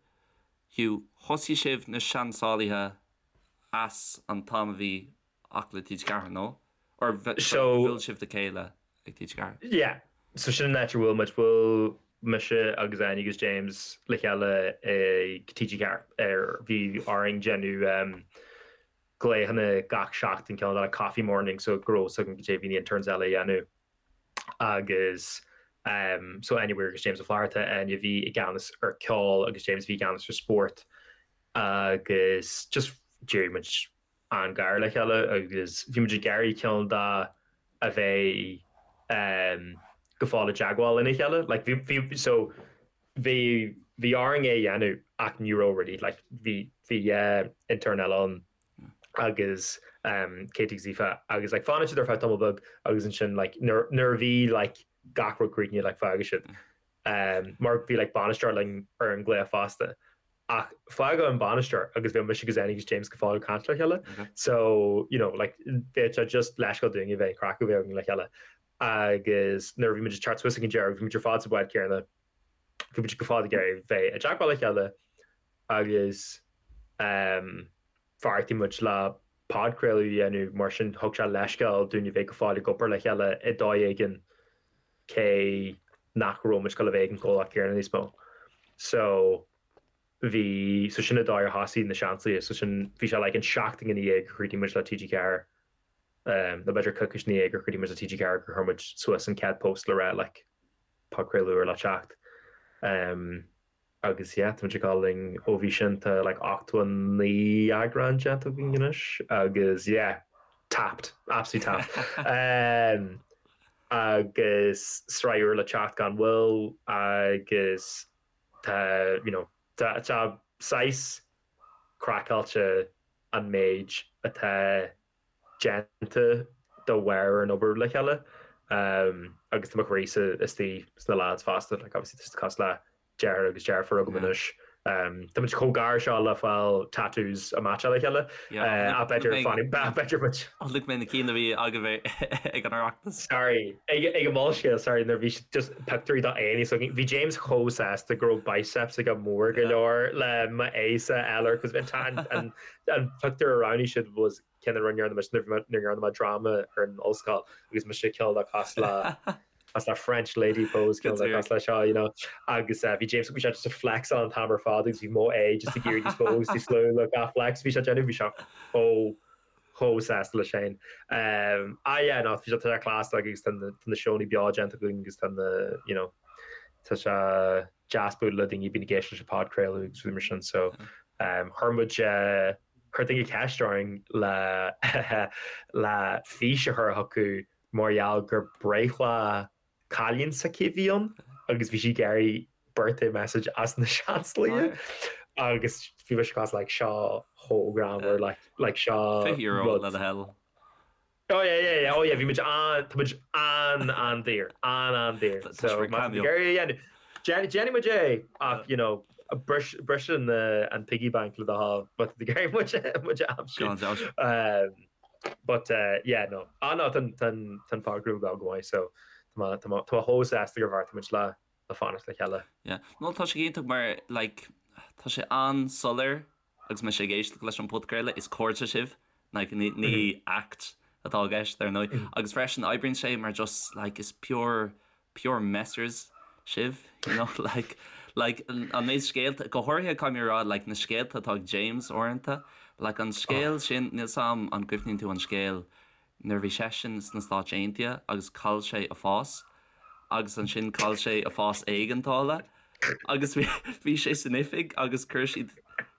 Hugh, thosaigh sibh na Seansálaithe as an t-am a bhí ach le TG4, nó? Or So- bhuail sibh le chéile ag TG4? Yeah. So sin an áit ar bhuail muid. Bhuail mise agus Áine agus James le chéile ag TG4 ar bhí orainn déanamh um, glaochanna gach seachtain cineál de coffee morning so go raibh fhios againn cad é a bhí na interns eile a dhéanamh agus um, so Áine Weir agus James Ó Flatharta, Áine a bhí i gceannas ar ceol agus James a bhí i gceannas ar spórt agus just d'éirigh muid an-ghar le chéile agus bhí muid ag iarraidh cineál de a bheith go fóill i dteagmháil lena chéile. Like bhí bhí so bhí bhí orainn é a dhéanamh ach ní raibh really like bhí bhí intern eile ann agus Katie agus Aoife agus like fanann siad ar feadh tamall beag agus ansin like nuair nuair a bhí like gach rud críochnaithe like fágfaidh siad. Mar bhí like bainisteoir linn ar an ghlaoch fosta. Ach fágadh an bainisteoir agus bhí mise agus Áine agus James go fóill ag caint le chéile. So, you know, like, bheadh sé just leithscéal dúinn a bheith an craic a bheith againn le chéile. Agus nuair a bhí muid ag teacht suas ag an deireadh, bhí muid ar fad sa bhád céanna, bhí muid go fóill ag iarraidh bheith i dteagmháil le chéile agus um, bheartaigh muid le podchraoladh a dhéanamh mar sin thug sé leithscéal dúinn a bheith go fóill ag obair le chéile i dóigh éigin cé nach raibh muid ag dul a bheith ag an gcomhlacht céanna níos mó. So bhí, so sin an dóigh ar thosaigh na Seansálaithe, so sin, bhí sé like an seachtain ina dhiaidh gur chríochnaigh muid le TG4, um, nó b'fhéidir coicís ina dhiaidh gur chríochnaigh muid le TG4 gur chuir muid suas an chéad post le rá like podchraoladh úr le teacht. Um, Agus yeah, tá muid ag dul linn ó bhí sin, tá like 89 eagrán déanta againn anois agus yeah, tapped, absolutely tapped. Um, agus sraith úr le teacht gan mhoill agus tá, you know, tá, tá saghas craiceáilte an méid atá déanta de bharr an obair le chéile agus tá mo chroí-sa istigh sna lads fosta, like obviously tá siad cosúil le deartháir agus deirfiúr agam anois. Tá muid chomh gar seo le fáil tattoos a meaitseáil le chéile. Ach b'fhéidir fanfaidh, b'fhéidir muid. Chonaic mé na cinn a bhí agaibh ag an Oireachtas. Sorry, ag an Molscéal, sorry, nuair a bhí just pictiúirí d'aghaidheanna s'againn. Bhí James chomh sásta go raibh biceps aige mór go leor le m'aghaidhse a fháil air, cos an an pictiúr a roghnaigh siad was ceann a rinne muid nuair a dhearna mé dráma ar an ollscoil agus mise cineál de cosúil le cosúil le French lady pose cineál de cosúil le seo you know agus bhí James bhí sé just ag flexáil an t-am ar fad agus bhí mo aghaidh just ag éirí níos mó agus níos lú le gach flex bhí sé ag déanamh bhí sé chomh chomh sásta leis féin. Um, ah yeah no bhí sé tá sé class like agus tá na tá na seónna beo déanta againn agus tá na you know tá sé deas bualadh le daoine a bhíonn ag éisteacht leis an podchraoladh agus rudaí mar sin so um, chuir muid eh, chuir duine ceist orainn le le fís a chur chucu mar gheall gur breithlá cailín s'aici a bhí ann agus bhí sí ag iarraidh birthday message as na Seansálaithe agus bhí mise cosúil like seo chomh greannmhar like like seo €20 le do thoil. Oh yeah yeah yeah oh yeah bhí muid an tá muid an an-daor an an-daor so má tá tú ag iarraidh a dhéanamh déanfaidh muid é ach you know bris bris an an piggy bank le do thoil má tá tú ag iarraidh muid muid a aimsiú. Gan dabht. But yeah no ah no tá tá tá an podchraoladh ag dul go maith so tá mé tá mé tá mé chomh sásta gur bheartaigh muid le le fanacht le chéile. Yeah. No tá sé iontach mar like. tá sé an-soiléir agus mise ag éisteacht leis an podchraoladh, is cairde sibh, like ní ní act atá i gceist ar ndóigh. Agus freisin oibríonn sé mar just like is pure pure messers sibh, you know, like like an méid scéalta, go háirithe caithfidh mé a rá like na scéalta atá ag James uaireanta, like an scéal sin, níl 's a'm an gcuimhníonn tú an scéal nuair a bhí seisean sna Stáit Aontaithe agus chaill sé a phas agus ansin chaill sé a phas éigeandála agus bhí sé san oifig agus chuir siad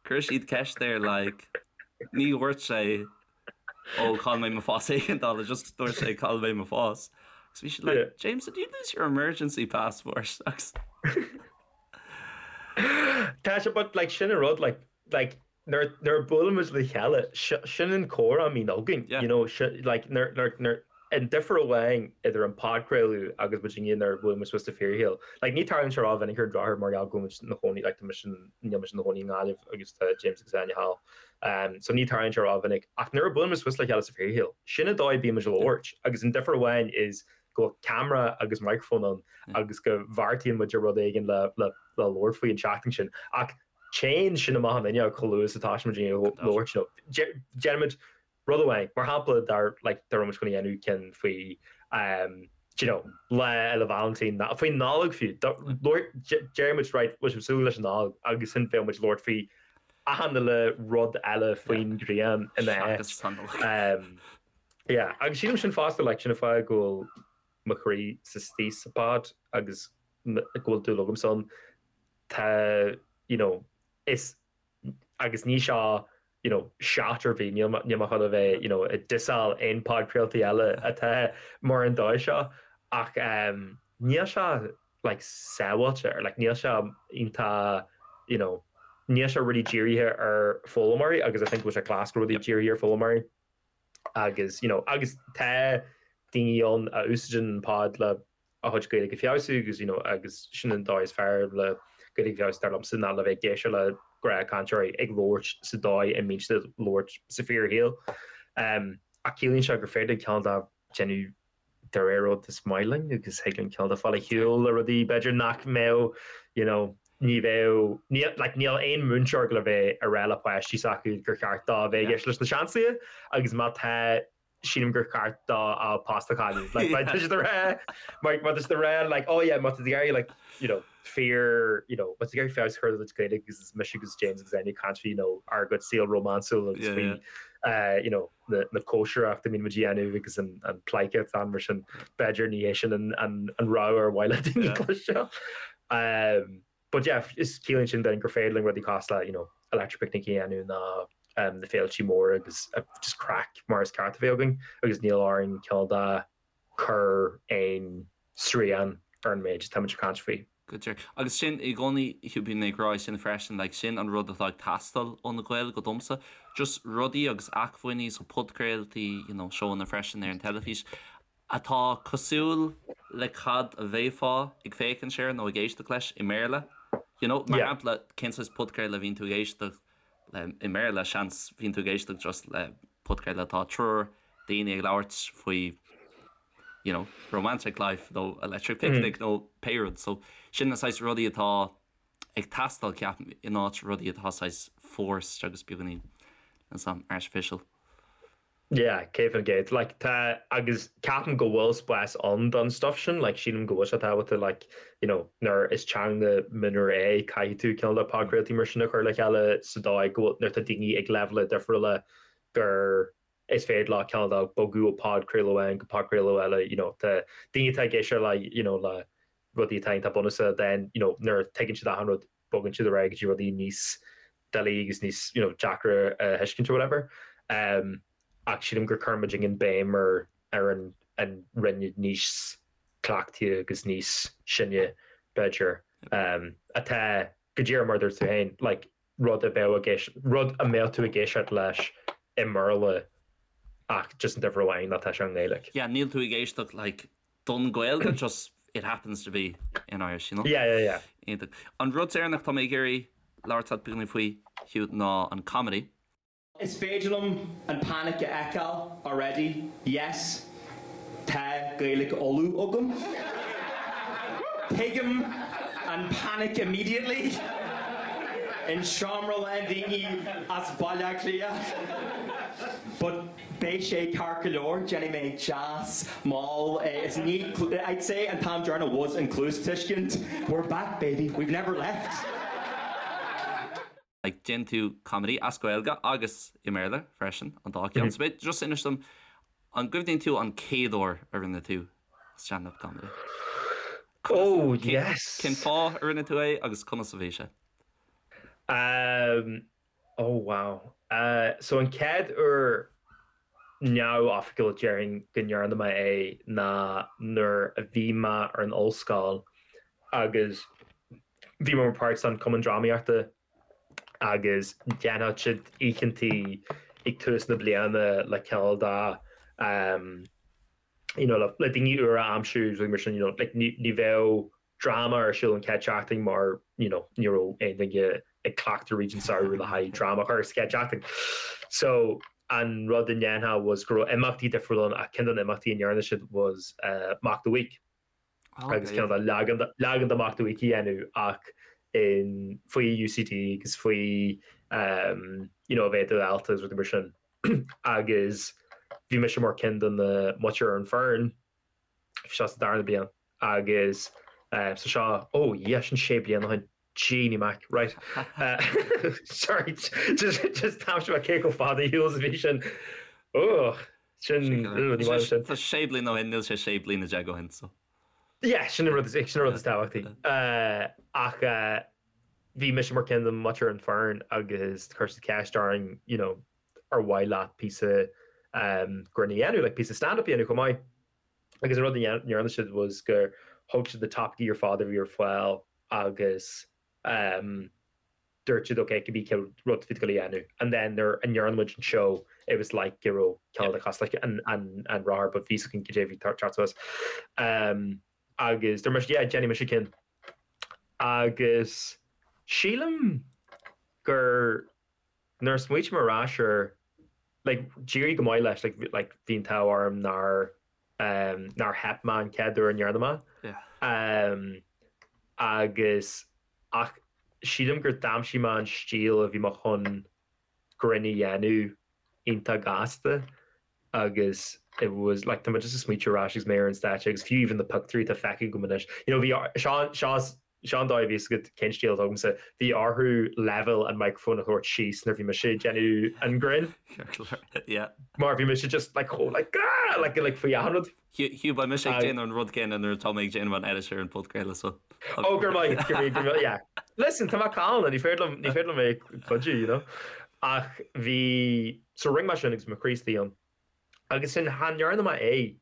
chuir siad ceist air like ní dhúirt sé ó chaill mé mo phas éigeandála just dúirt sé chaill mé mo phas agus bhí siad like yeah. James did you lose your emergency passport agus Tá sé but like sin an rud like like nuair a buaileann muid le chéile, sin an comhrá a bhíonn againn, you know, like nuair, nuair, nuair, an difear amháin idir an podchraoladh agus muid inniu nuair a bhuaileann muid suas sa fíorshaol. Like ní tarlaíonn sé rómhinic ar an drochuair mar gheall go bhfuil muid ina chónaí, like tá mise, níl mise ina chónaí i nGaillimh agus tá James agus Áine thall. Um, so ní tarlaíonn sé rómhinic. Ach nuair a buaileann muid suas le chéile sa fíorshaol, sin an dóigh a bíonn muid ag labhairt agus an difear amháin is go bhfuil ceamara agus microphone ann agus go bheartaíonn muid ar rud éigin le, le, le labhairt faoi an tseachtain sin. Ach téann sin amach an fhuinneog chomh luath is atá muid ag labhairt you know. Déanaimid rud amháin, mar shampla dá like dá raibh muid chun a dhéanamh ceann faoi um do you know Lá Fhéile Vailintín ná faoin Nollaig fiú. Deir muid right bhfuil sibh ag súil leis an Nollaig agus ansin bheadh muid ag labhairt faoi achan uile rud eile faoin ghrian ina áit. Um yeah agus sílim sin fosta like sin an fáth go bhfuil mo chroí sa istigh sa pod agus go bhfuil dúil agamsa ann. tá, you know, is, agus ní seo, you know, shot ar bith, níl níl mé chun a bheith, you know, ag dissáil aon podchraoltaí eile atá mar an dóigh seo, ach um, níl sé, like, sábháilte, or like, níl sé iontach, you know, níl sé really dírithe ar foghlaimeoirí, agus I think go bhfuil sé class go rudaí dírithe ar foghlaimeoirí, agus, you know, agus tá daoine ann a úsáideann an pod le a chuid Gaeilge a feabhsú agus you know agus sin an dóigh is fearr le Gaeilge a feabhsú dar liomsa ná le bheith ag éisteacht le gnáthchainteoirí ag labhairt sa dóigh a mbíonn siad ag labhairt sa fíorshaol. Um, ach ciallaíonn sé gur féidir cineál de déanamh de réir rud is maith linn agus thig linn cineál de fáil ar shiúl le rudaí b'fhéidir nach mbeadh you know, ní bheadh níl like, níl aon múinteoir le bheith ag rá le páistí s'acu gur cheart dó bheith ag éisteacht leis na Seansálaithe agus má tá sílim gur ceart dó a post a chailleadh. Like, má tá siad ag rá, má má tá siad ag rá, like, oh yeah, má tá tú ag iarraidh, like, you know, fíor, you know, má tá tú ag iarraidh feabhas a chur ar do chuid Gaeilge agus is mise agus James agus Áine ag caint faoi, you know, ár gcuid saol rómánsúil agus Yeah, faoi, uh, you know, na, na cóisireacht a mbíonn muid a dhéanamh agus an, an pleidhce atá ann mar sin, b'fhéidir ní hé sin an, an, an rogha ar mhaith le daoine Yeah. cloisteáil. Um, But yeah, is ciallaíonn sin then gur féidir linn rudaí cosúil le, you know, Electric Picnic a dhéanamh ná um, na féiltí móra agus uh, just craic mar is ceart a bheith againn agus níl orainn cineál de cur aon srian ar an méid atá muid ag caint faoi. Go díreach. Agus sin i gcónaí, bíonn mé ag rá sin freisin, like, sin an rud atá ag teastáil ó na Gaeil go domsa. Just rudaí agus acmhainní, so podchraoltaí, you know, seóanna freisin ar an teilifís, atá cosúil le cad a bheifeá ag féachaint air nó ag éisteacht leis i mBéarla. You know, mar shampla, cén saghas podchraoladh a bhíonn tú ag éisteacht le i mBéarla? Seans bhíonn tú ag éisteacht just le podchraoladh atá triúr daoine ag labhairt faoi, you know, romantic life nó electric picnic nó pé rud. So sin na saghas rudaí atá ag teastáil, ceapaim, in áit rudaí atá saghas forced agus beagáinín artificial. Yeah, 100%. Like, tá, agus ceapaim go bhfuil spás ann don stuff sin, like, sílim go bhfuil sé tábhachtach, like, you know, nuair is teanga mionúir é, caithfidh tú cineál de podchraoltaí mar sin a chur le chéile sa dóigh go bhfuil, nuair atá daoine ag leibhéala difriúla gur is féidir leo cineál de bogadh ó podchraoladh amháin go podchraoladh eile, you know, tá daoine atá ag éisteacht le, you know, le rudaí atá iontach bunúsach, then, you know, nuair a tuigeann siad achan rud, bogann siad ar aghaidh go dtí rudaí níos doiligh agus níos you know deacra a thuiscint or whatever. Um, ach sílim gur chuir muid an béim ar ar an an roinn níos cleachtaithe agus níos sine b'fhéidir um, atá go díreach mar dúirt tú féin like, rud a bheadh ag éist rud a mbeadh tú ag éisteacht leis i mBéarla ach just an difear amháin ná tá sé i nGaeilge. Yeah, níl tú ag éisteacht like don Ghaeilge, just it happens to be in Irish, you know? Yeah, yeah, yeah. Iontach. An rud deireanach tá mé ag iarraidh labhairt leat beagáinín faoi, Hugh, ná an comedy. Is féidir liom an panic a fheiceáil already, yes, tá Gaeilge Uladh agam. Tuigim an panic immediately. in seomra lán daoine as Baile Átha Cliath. But beidh sé ceart go leor, déanfaidh mé deas mall is ní, I'd say an t-am deireanach was an cluastuiscint, we're back baby, we've never left. Like déanann tú comedy as Gaeilge agus i mBéarla freisin, an dá cheann. So b'fhéidir just inis dom, an gcuimhníonn tú an chéad uair a rinne tú stand-up comedy? Oh, yes! Cén fáth a rinne tú é agus conas a bhí sé? Um, oh wow. Uh, so an chéad uair neamhoifigiúil déarfainn go ndearna mé é ná nuair a bhí mé ar an ollscoil agus bhí mé mar páirt den Cumann Drámaíochta agus dhéanfadh siad oícheantaí ag tús na bliana le cineál de you know le daoine úra a aimsiú agus mar sin you know like ní bheadh dráma ar siúl an chéad seachtain mar you know ní raibh aon duine ag cleachtadh tríd an samhradh le haghaidh dráma a chur sa chéad seachtain. So an rud a ndéanfá was go raibh imeachtaí difriúla ann ach ceann de na imeachtaí a ndearna siad was Mock the Week. Agus cineál de leagan leagan de Mock the Week a dhéanamh ach in faoi UCD agus faoi um, you know, a bheith i do dhalta agus rudaí mar sin. Agus bhí mise mar ceann de na muintir ar an foireann, bhí sé sa darna bliain agus so seo, oh yeah, sin sé bliana ó shin, Jeannie Mac, right. Sorry, just just d'aimsigh mé cé chomh fada ar shiúl is a bhí sin. Oh, sin, ní maith liom sin. Tá sé bliana ó shin, níl sé sé bliana déag ó shin, so. Yeah, sin an rud is, sin an rud is tábhachtaí. Ach bhí mise mar ceann de muintir an foireann agus chuir siad ceist orainn, you know, ar mhaith leat píosa grinn a dhéanamh, like píosa stand-up a dhéanamh chomh maith. Agus an rud a ndearna siad was gur thóg siad na topaicí ar fad a bhí ar fáil agus dúirt siad ok cibé cén rud bhí tú ag dul a dhéanamh. And then nuair a ndearna muid an seó it was like go raibh cineál de cosúil like an an rothar but bhí a fhios againn cad é a bhí teacht suas. Agus dúirt mise yeah déanfaidh mise ceann. Agus sílim gur Nuair a smaoitím ar ais air, like, d'éirigh go maith leis, like, like, bhí an t-ádh orm nár, um, nár theip mé an chéad uair a ndearna mé. Yeah. Um, agus, ach sílim gur d'aimsigh mé an stíl a bhí mé chun grinn a dhéanamh iontach gasta agus it was, like, tá mé just ag smaoitiú ar ais agus mé ar an stáitse agus fiú even na pictiúirí atá feicthe agam anois, you know, bhí, seo, seo, Seo an dóigh a bhí fhios agat cén stíl atá agamsa. Bhí orthu leibhéal an microphone a thabhairt síos nuair bhí mise ag déanamh an grinn. Yeah. Mar bhí mise just like chomh like ah! like like faoi achan rud. Hugh, beidh mise ag déanamh an rud céanna nuair atá mé ag déanamh an edit ar an podchraoladh so. Oh, go raibh maith, go raibh maith, yeah. Listen, tá mé calma, ní féidir liom, ní féidir liom é cuidiú, you know. Ach bhí, so rinne mé sin agus mo chroí istigh ann. Agus sin, chan dhearna mé é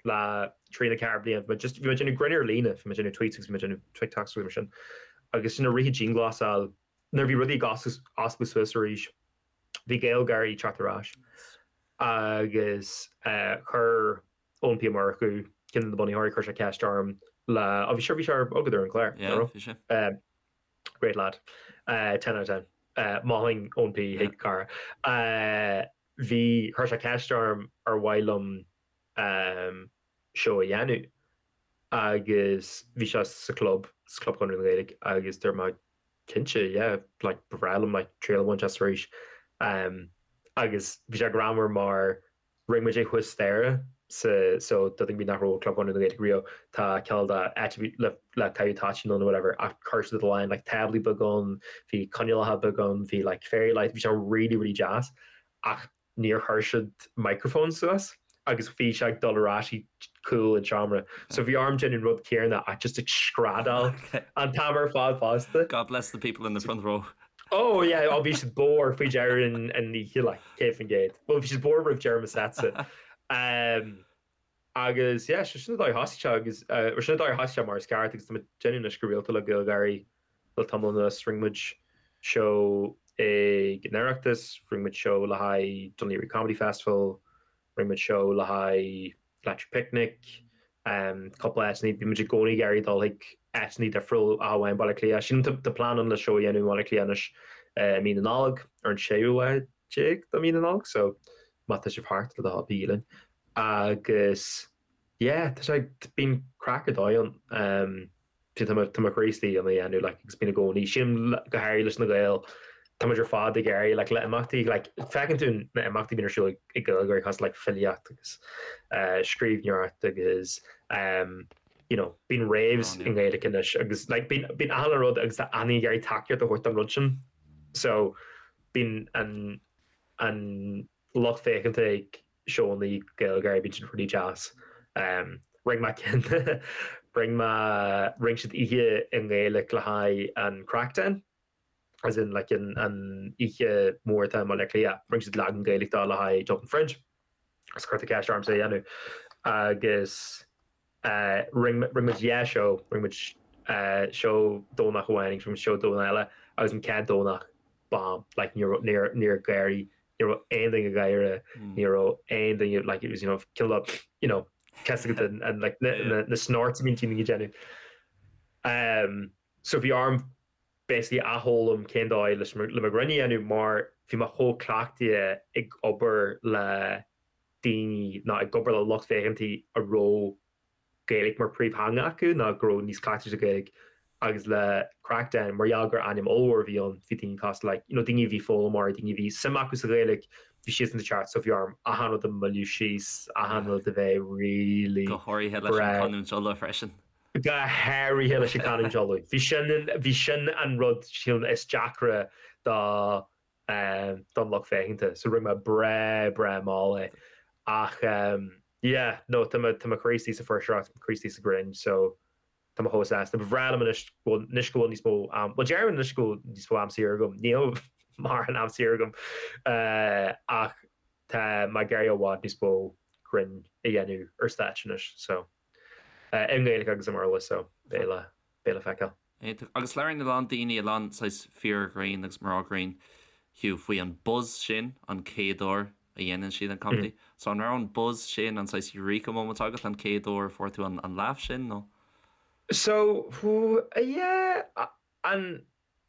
le trí nó 4 bliain. Bhí mé just, bhí mé ag déanamh grinn ar líne, bhí mé ag déanamh tweets agus bhí mé ag déanamh TikToks agus mar sin. Agus sin i rith an dianghlasáil, nuair a bhí rudaí ag oscailt suas arís, bhí GaelGáirí ag teacht ar ais. Agus chuir Eoin P Ó Murchú, ceann de na bunaitheoirí, chuir sé ceist orm le, oh bhí sé, bhí sé agat ar an chlár, Yeah, bhí sé. Great lad. 10 out of 10. Mholfainn Eoin P chuig cara. Bhí, chuir sé ceist orm ar mhaith liom seó a dhéanamh agus bhí sé sa chlub, sa Chlub Chonradh na Gaeilge agus dúirt mé cinnte, yeah, like ba bhreá liom like triail a bhaint as arís. Agus bhí sé greannmhar mar rinne muid é thuas staighre sa, so do dhaoine nach raibh i gClub Chonradh na Gaeilge riamh, tá cineál de áit le le caitheamh toitín ann nó whatever ach chuir siad a lán like táblaí beaga ann, bhí coinnealacha beaga ann, bhí like fairy lights, bhí sé really really deas ach níor chuir siad microphone suas agus bhí sé ag dul ar ais i gcúl an tseomra. So bhí orm déanamh an rud céanna ach just ag screadaíl an t-am ar fad fosta. God bless the people in the front row. Oh yeah, oh bhí siad bodhar faoi dheireadh an oíche like, 100%. Well bhí siad bodhar roimh deireadh mo setsa. Um, agus yeah, so sin an dóigh a thosaigh sé agus uh, sin an dóigh a thosaigh sé mar is ceart agus tá mé ag déanamh anois go rialta le GaelGáirí le tamall anuas. Rinne muid seó ag an Oireachtas, rinne muid seó le haghaidh Dún Laoghaire Comedy Festival, rinne muid seó le haghaidh Electric Picnic, cúpla áiteanna, bíonn muid i gcónaí ag iarraidh dul chuig áiteanna difriúil ach amháin Baile Átha Cliath. Sílim tá plean ann le seó a dhéanamh i mBaile Átha Cliath anois i mí na Nollag, ar an séú lá déag de mhí na Nollag, so má tá sibh thart le do thoil bígí linn. Agus yeah, tá sé, bíonn craic ar dóigh ann. Tá mé tá mé croí istigh ina dhéanamh like agus bíonn i gcónaí. Sílim go háirithe leis na Gaeil tá muid ar fad ag iarraidh like le imeachtaí like feiceann tú na imeachtaí bíonn ar siúl ag Gaeilgeoirí cosúil like filíocht agus eh scríbhneoireacht agus ehm you know bíonn raves i nGaeilge anois agus like bíonn bíonn achan rud agus tá daoine ag iarraidh tacaíocht a thabhairt don rud sin. So bíonn an an lucht féachanta ag seónna Gaeilgeoirí, bíonn sin really deas. Rinne mé ceann, rinne mé, rinne siad oíche i nGaeilge le haghaidh an Craicden, as in like an an oíche mhór atá i mBaile Átha Cliath, rinne siad leagan Gaeilge dó le haghaidh Dublin Fringe. Agus cuirtear ceist ormsa é a dhéanamh. Agus rinne rinne muid dhá seó, rinne muid seó Domhnach amháin agus rinne muid seó Domhnach eile agus an chéad Domhnach, bomb, like ní raibh, níor, níor gháirí ní raibh aon duine ag gáire, ní raibh aon duine, like it was, you know, cineál of, you know, cosúil agat an, an, like, na, na, na snorts a bhíonn daoine ag déanamh. Um, so bhí orm basically athfhoghlaim cén dóigh leis le mo ghreann a dhéanamh mar bhí mé chomh cleachtaithe ag obair le daoine nó ag obair le lucht féachanta a raibh Gaeilge mar príomhtheanga acu nó go raibh níos cleachtaithe sa Ghaeilge agus le Craicden mar gheall gur ainm ollmhór a bhí ann bhí daoine cosúil like you know daoine a bhí foghlaimeoirí daoine a bhí suim acu sa Ghaeilge bhí siadsan ag teacht so bhí orm achan rud a mhilleadh síos achan rud a bheith really Go háirithe leis an chanúint Uladh freisin. Go háirithe leis an chanúint Uladh. Bhí sin bhí sin an rud sílim is deacra do don lucht féachanta. So rinne mé breá breá mall é. Ach yeah, no, tá mé tá mé croí istigh sa fuirseoireacht, tá mé croí istigh sa ghreann, so tá mé chomh sásta. Ba bhreá liom anois go bhfuil anois go bhfuil níos mó am, bhuel deirim anois go bhfuil níos mó am saor agam, níl mórán am saor agam ach tá mé ag iarraidh i bhfad níos mó grinn a dhéanamh ar stáitse anois, so i nGaeilge agus i mBéarla, so beidh le beidh le feiceáil. Iontach. Agus labhraíonn a lán daoine, a lán saghas fir ghrinn agus mná grinn, Hugh, faoi an buzz sin an chéad uair a dhéanann siad an comedy. So an raibh an buzz sin, an saghas eureka moment agat an chéad uair a fuair tú an laugh sin nó? So, yeah, an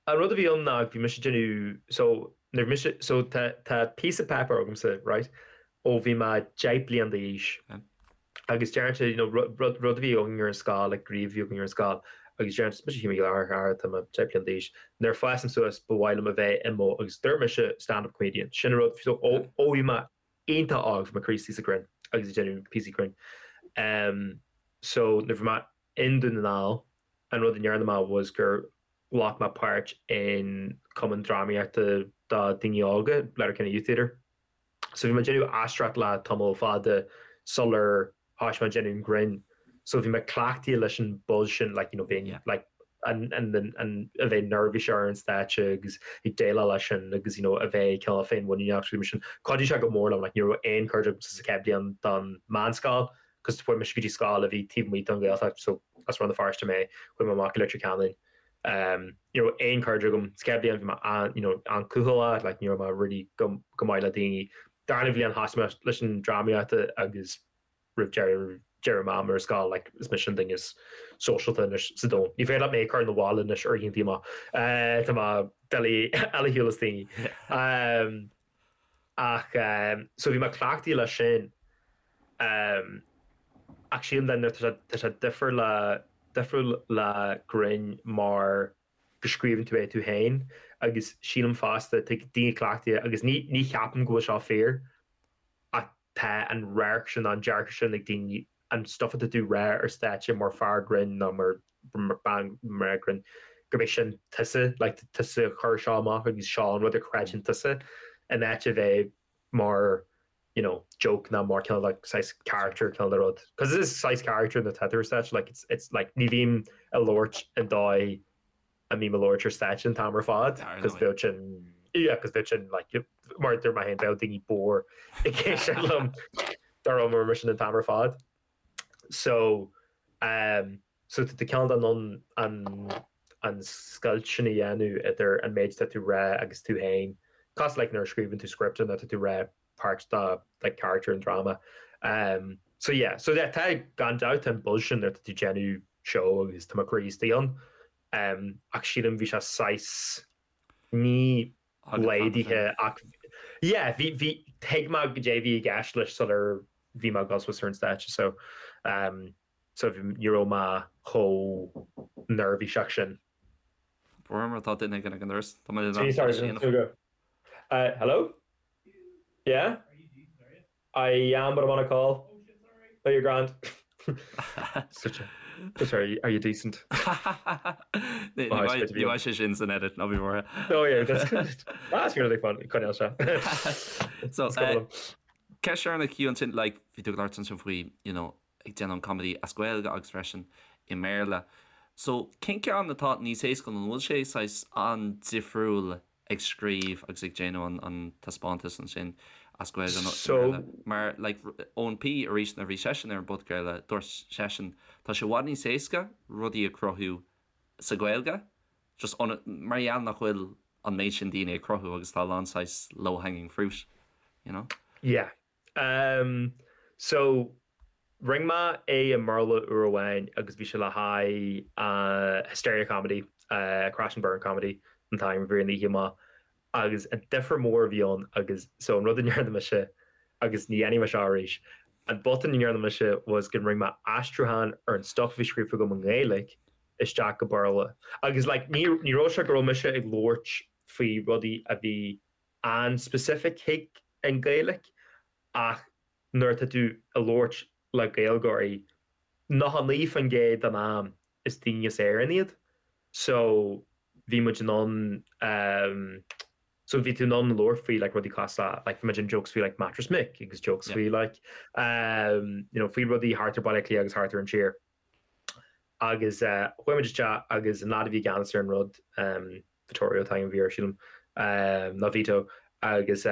an rud a bhí ann ná bhí mise ag déanamh, so nuair bhí mise, so tá tá píosa páipéir agamsa, right, ó bhí mé 10 bliain d'aois agus deireann sé, you know, rud rud a bhí againn ar an scoil, like gníomh a bhí againn ar an scoil agus deireann sé, mise Hugh Mac Giolla Chearra, tá mé 10 bliain d'aois, nuair a fásaim suas ba mhaith liom a bheith i mo, agus dúirt mise stand-up comedian, sin an rud, so ó ó bhí mé iontach óg bhí mé croí istigh sa ghreann agus ag déanamh píosaí grinn. Um, so nuair bhí mé i nDún na nGall, an rud a ndearna mé was gur ghlac mé páirt in cumann drámaíochta do daoine óga, Letterkenny Youth Theatre. So bhí mé ag déanamh aisteoireacht le tamall fada sular thoisigh mé ag déanamh an grinn. So bhí mé cleachtaithe leis an buzz sin, like, you know, bheinn, like, an, an, an, a bheith neirbhíseach ar an stáitse agus ag déileáil leis sin agus, you know, a bheith cineál féinmhuiníneach mar sin. Chuidigh sé go mór liom, like, ní raibh aon chairde agamsa sa chéad bhliain den meánscoil, cos chuaigh mise go dtí scoil a bhí taobh amuigh den Ghaeltacht, so as Rann na Feirste mé, chuaigh mé amach go Leitir Ceanainn. Ní raibh aon chairde agam. Sa chéad bhliain bhí mé an, you know, an-cúthaileach, like ní raibh mé really go, go maith le daoine. Darna bhliain thosaigh mé leis an drámaíocht agus roimh deireadh, deireadh m'am ar scoil, like is mise an duine is sóisialta anois sa domhan. Ní féidir leat mé a chur 'na bhaile anois ar oícheanta amach. Tá mé doiligh ar shiúl as daoine. Ach so bhí mé cleachtaithe leis sin. Ach sílim then tá sé tá sé difriúil le difriúil le grinn mar go scríobhann tú é tú féin agus sílim fosta tá daoine cleachtaithe agus ní ní cheapaim go bhfuil seo fíor ach tá an radharc sin an dearcadh sin ag daoine an stuff atá tú rá ar stáitse mar fear grinn nó mar bean mná grinn gurb é sin tusa like tusa a chuir seo amach agus seo an rud a chreideann tusa in áit a bheith mar you know joke ná mar cineál like saghas character cineál de rud. Cos it is saghas character nuair atá tú ar stáitse like it's it's like ní bhím ag labhairt an dóigh a mbím ag labhairt ar stáitse an t-am ar fad cos bheadh sin yeah cos bheadh sin like mar a dúirt mé féin bheadh daoine bodhar ag éisteacht liom dá raibh mar sin an t-am ar fad. So um so tá tú cineál in ann an an scoilt sin a dhéanamh idir an méid atá tú rá agus tú féin, cosúil like nuair a scríobhann tú script nó tá tú rá páirt de like character an dráma. Um so yeah, so yeah tá gan dabht tá an buzz sin nuair atá tú déanamh seó agus tá mo chroí istigh ann. Um ach sílim bhí sé saghas ní laghdaithe ach yeah bhí bhí thuig mé goidé a bhí i gceist leis sular bhí mé ag dul suas ar an stáitse so um. So ní raibh mé chomh neirbhíseach sin. Mar tá duine ag an doras. Tá mé in ann. Hello? Yeah? I am, but I'm on a call. Oh shit, sorry. Oh, you're grand. Such a, sorry, are you decent? Ní bheidh sé sin san edit, ná bí buartha. Oh yeah, that's good. That's really fun. Coinneáil seo. So, ceist dheireanach Hugh ansin, like, bhí tú ag labhairt ansin faoi, you know, ag déanamh an comedy as Gaeilge agus freisin i mBéarla. So, cén ceann atá níos éasca nó an bhfuil sé saghas an-difriúil ag scríobh agus ag déanamh an taispeántas ansin as Gaeilge nó i mBéarla? Mar like Eoin P arís nuair a bhí seisean ar an bpodchraoladh dúirt seisean tá sé i bhfad níos éasca rudaí a chruthú sa Ghaeilge just mar gheall nach bhfuil an méid sin daoine ag cruthú agus tá a lán saghas low hanging fruit, you know? Yeah. Um, so, rinne mé é i mBéarla uair amháin agus bhí sé le haghaidh uh, Hysteria Comedy, uh, Crash and Burn Comedy an t-ainm a bhí ar an oíche amach agus an difear mór a bhí ann agus so an rud a ndearna mise agus ní dhéanfaidh mé seo arís, an botún a ndearna mise was go rinne mé aistriúchán ar an stuff a bhí scríofa agam i nGaeilge isteach go Béarla agus like ní ní raibh sé go raibh mise ag labhairt faoi rudaí a bhí an-specific chuig an Ghaeilge ach nuair atá tú ag labhairt le Gaeilgeoirí, 99% den am is daoine as Éirinn iad so bhí muid in ann so bhí tú in ann labhairt faoi like rudaí cosúil le like bhí muid in jokes faoi like Mattress Mick agus jokes faoi like you know faoi rudaí thart ar Baile Átha Cliath agus thart ar an tír. Agus chuaigh muid isteach agus an lad a bhí i gceannas ar an rud, Vittorio an t-ainm a bhí air sílim, nó Vito, agus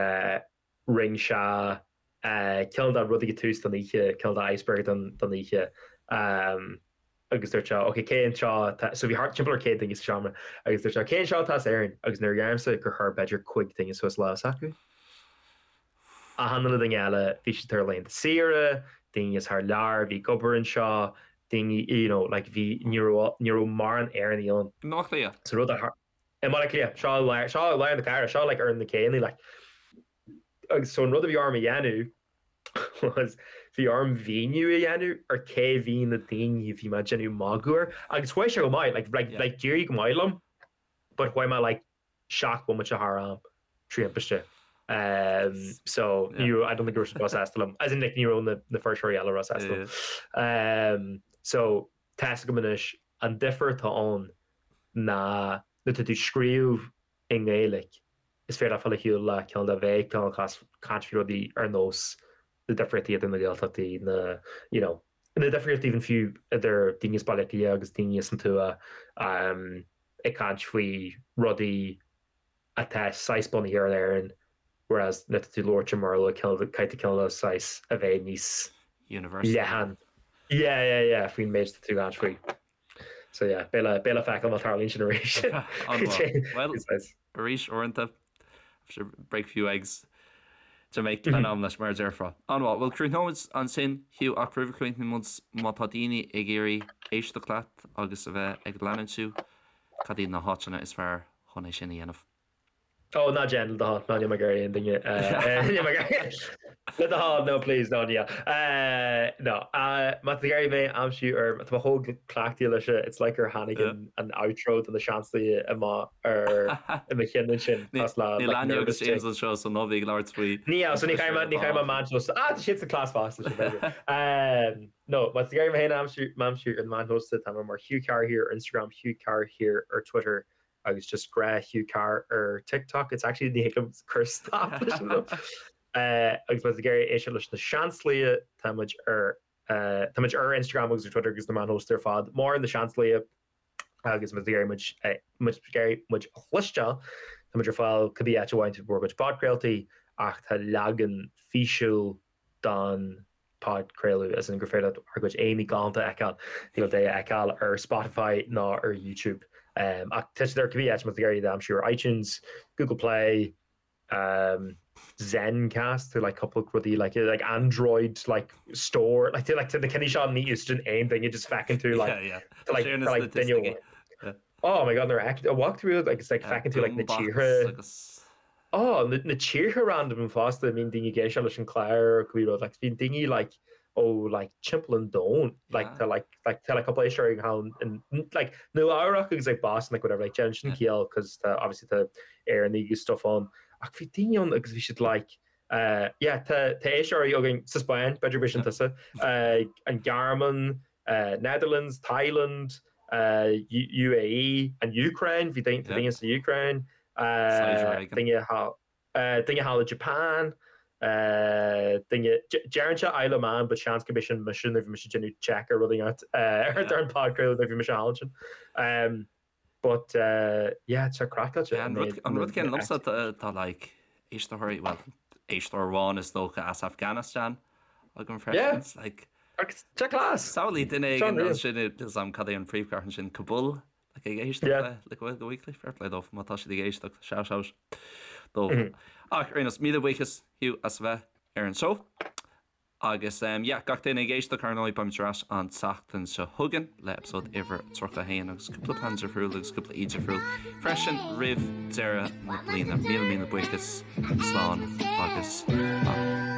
rinne sé cineál de rud ag tús don oíche, cineál de icebreaker don oíche agus dúirt sé ok cé anseo atá, so bhí thart timpeall ar 100 duine sa seomra agus dúirt sé cé anseo atá as Éirinn agus nuair a dheirimse gur chuir b'fhéidir 5 duine suas lámh s'acu. Achan uile duine eile, bhí siad ar laethanta saoire, daoine as thar lear a bhí ag obair anseo, daoine, you know, like bhí, ní raibh, ní raibh mórán Éireannaigh ann. I mBaile Átha Cliath? So rud a thar, i mBaile Átha Cliath, seo i lár, seo i lár na cathrach, seo like ar na céanna, like. Agus so an rud a bhí orm a dhéanamh was bhí orm mhíniú a dhéanamh ar cé bhí na daoine a bhí mé ag déanamh magadh air agus chuaigh sé go maith, like, like, like d'éirigh go maith liom but chuaigh mé like 7 bomaite thar am 3 ambaiste. So ní raibh, I don't think go raibh siad róshásta liom. As in like ní raibh na na fuirseoirí eile róshásta liom. So tá's agam anois an difear atá ann ná nuair atá tú ag scríobh i nGaeilge is féidir leat fáil ar shiúl le cineál de bheith cineál caint faoi rudaí ar nós na difríochtaí idir na Gaeltachtaí, na you know na difríochtaí even fiú idir daoine as Baile Átha Cliath agus daoine as an tuath. ag caint faoi rudaí atá saghas bunaithe ar Éirinn whereas nuair atá tú ag labhairt i mBéarla caithfidh tú cineál de saghas a bheith níos Universal. leathan. Yeah, yeah, yeah, faoin méid atá tú ag caint faoi. So yeah, beidh le, beidh le feiceáil má tarlaíonn sin arís. An-mhaith. Well, arís uaireanta, break few eggs to make an omelette mar a déarfá. An-mhaith. Bhuel, críochnóimid ansin, Hugh, ach roimh a chríochnóidh muid, má tá daoine ag iarraidh éisteacht leat agus a bheith ag leanúint thú, cad iad na háiteanna is fearr chun é sin a dhéanamh? Ó, ná déan, le do thoil. Ná níl mé ag iarraidh aon duine, níl mé ag iarraidh, le do thoil, no please, no níl. No, má tá tú ag iarraidh mé a aimsiú ar, tá mé chomh cleachtaithe leis, it's like gur tháinig an outro do na Seansálaithe amach ar i mo chinn ansin cosúil le Níl like Áine agus nervous James tic. anseo so ná bí ag labhairt faoi Níl, so ní chaithfidh mé ní chaithfidh mé meáin shóisialta ah tá siad sa cleas fosta sin b'fhéidir. No, má tá tú ag iarraidh mé féin a aimsiú m'aimsiú ar na meáin shóisialta tá mé mar Hugh Carr here ar Instagram, Hugh Carr here ar Twitter agus just gnáth Hugh Carr ar TikTok. It's actually ní thig liom cur stop leis an rud. Agus má tá tú ag iarraidh éisteacht leis na Seansálaithe tá muid ar tá muid ar Instagram agus ar Twitter agus na meáin shóisialta ar fad mar na Seansálaithe. agus má tá tú ag iarraidh muid má tá tú ag iarraidh muid a chloisteáil, tá muid ar fáil cibé áit a bhfaigheann tú bhur gcuid podchraoltaí ach tá leagan físiúil don podchraoladh, as in gur féidir leat ár gcuid aghaidheanna galánta a fheiceáil, thig leat é a fheiceáil ar Spotify ná ar YouTube. Ach tá siad ar cibé áit má tá tú ag iarraidh iad a aimsiú ar iTunes, Google Play, um Zencast tá like cúpla rudaí like like Android like store like like na cinn seo ní úsáideann aon duine just feiceann tú like yeah, yeah. like like duine yeah. Oh my god nuair a walk through like it's like feiceann tú like na tíortha Oh na, na tíortha random fosta bíonn daoine ag éisteacht leis an chlár cibé rud like bíonn daoine like. Ó like timpeall an domhain like tá like like tá like cúpla éisteoir thall in like Nua Eabhrac agus like Boston like whatever like déanann sin ciall cos tá obviously tá Éireannaigh agus stuff ann ach bhí daoine ann agus bhí siad like uh yeah tá tá éisteoirí againn sa Spáinn b'fhéidir b'é sin tusa uh an Ghearmáin uh Netherlands Thailand uh UAE an Ukraine bhí daoine tá daoine sa Ukraine uh daoine thall Duine thall i Japan, duine, deireann sé Isle of Man but seans gurb é sin mise nuair a bhí mise ag déanamh check ar rud éigin ar an podchraoladh nuair a bhí mise thall ansin. But yeah, tá craiceáilte. An rud céanna liomsa tá like éisteoirí, well éisteoir amháin is dócha as Afghanistan agam freisin. Like Agus tá class! Samhlaigh duine éigin ansin, níl 'fhios a'm cad é an phríomhchathair ansin, Kabul? Like ag éisteacht le le Gaeilge Weekly, fair play dóibh má tá siad ag éisteacht, shout out dóibh. Ach ar aon nós, míle buíochas Hugh as a bheith ar an seó. Agus um, yeah, gach duine ag éisteacht ar ndóigh beimid ar ais an tseachtain seo chugainn le eipeasóid uimhir 31 agus cúpla plean difriúil agus cúpla aoi difriúil freisin roimh deireadh na bliana. Míle míle buíochas, slán agus beannacht.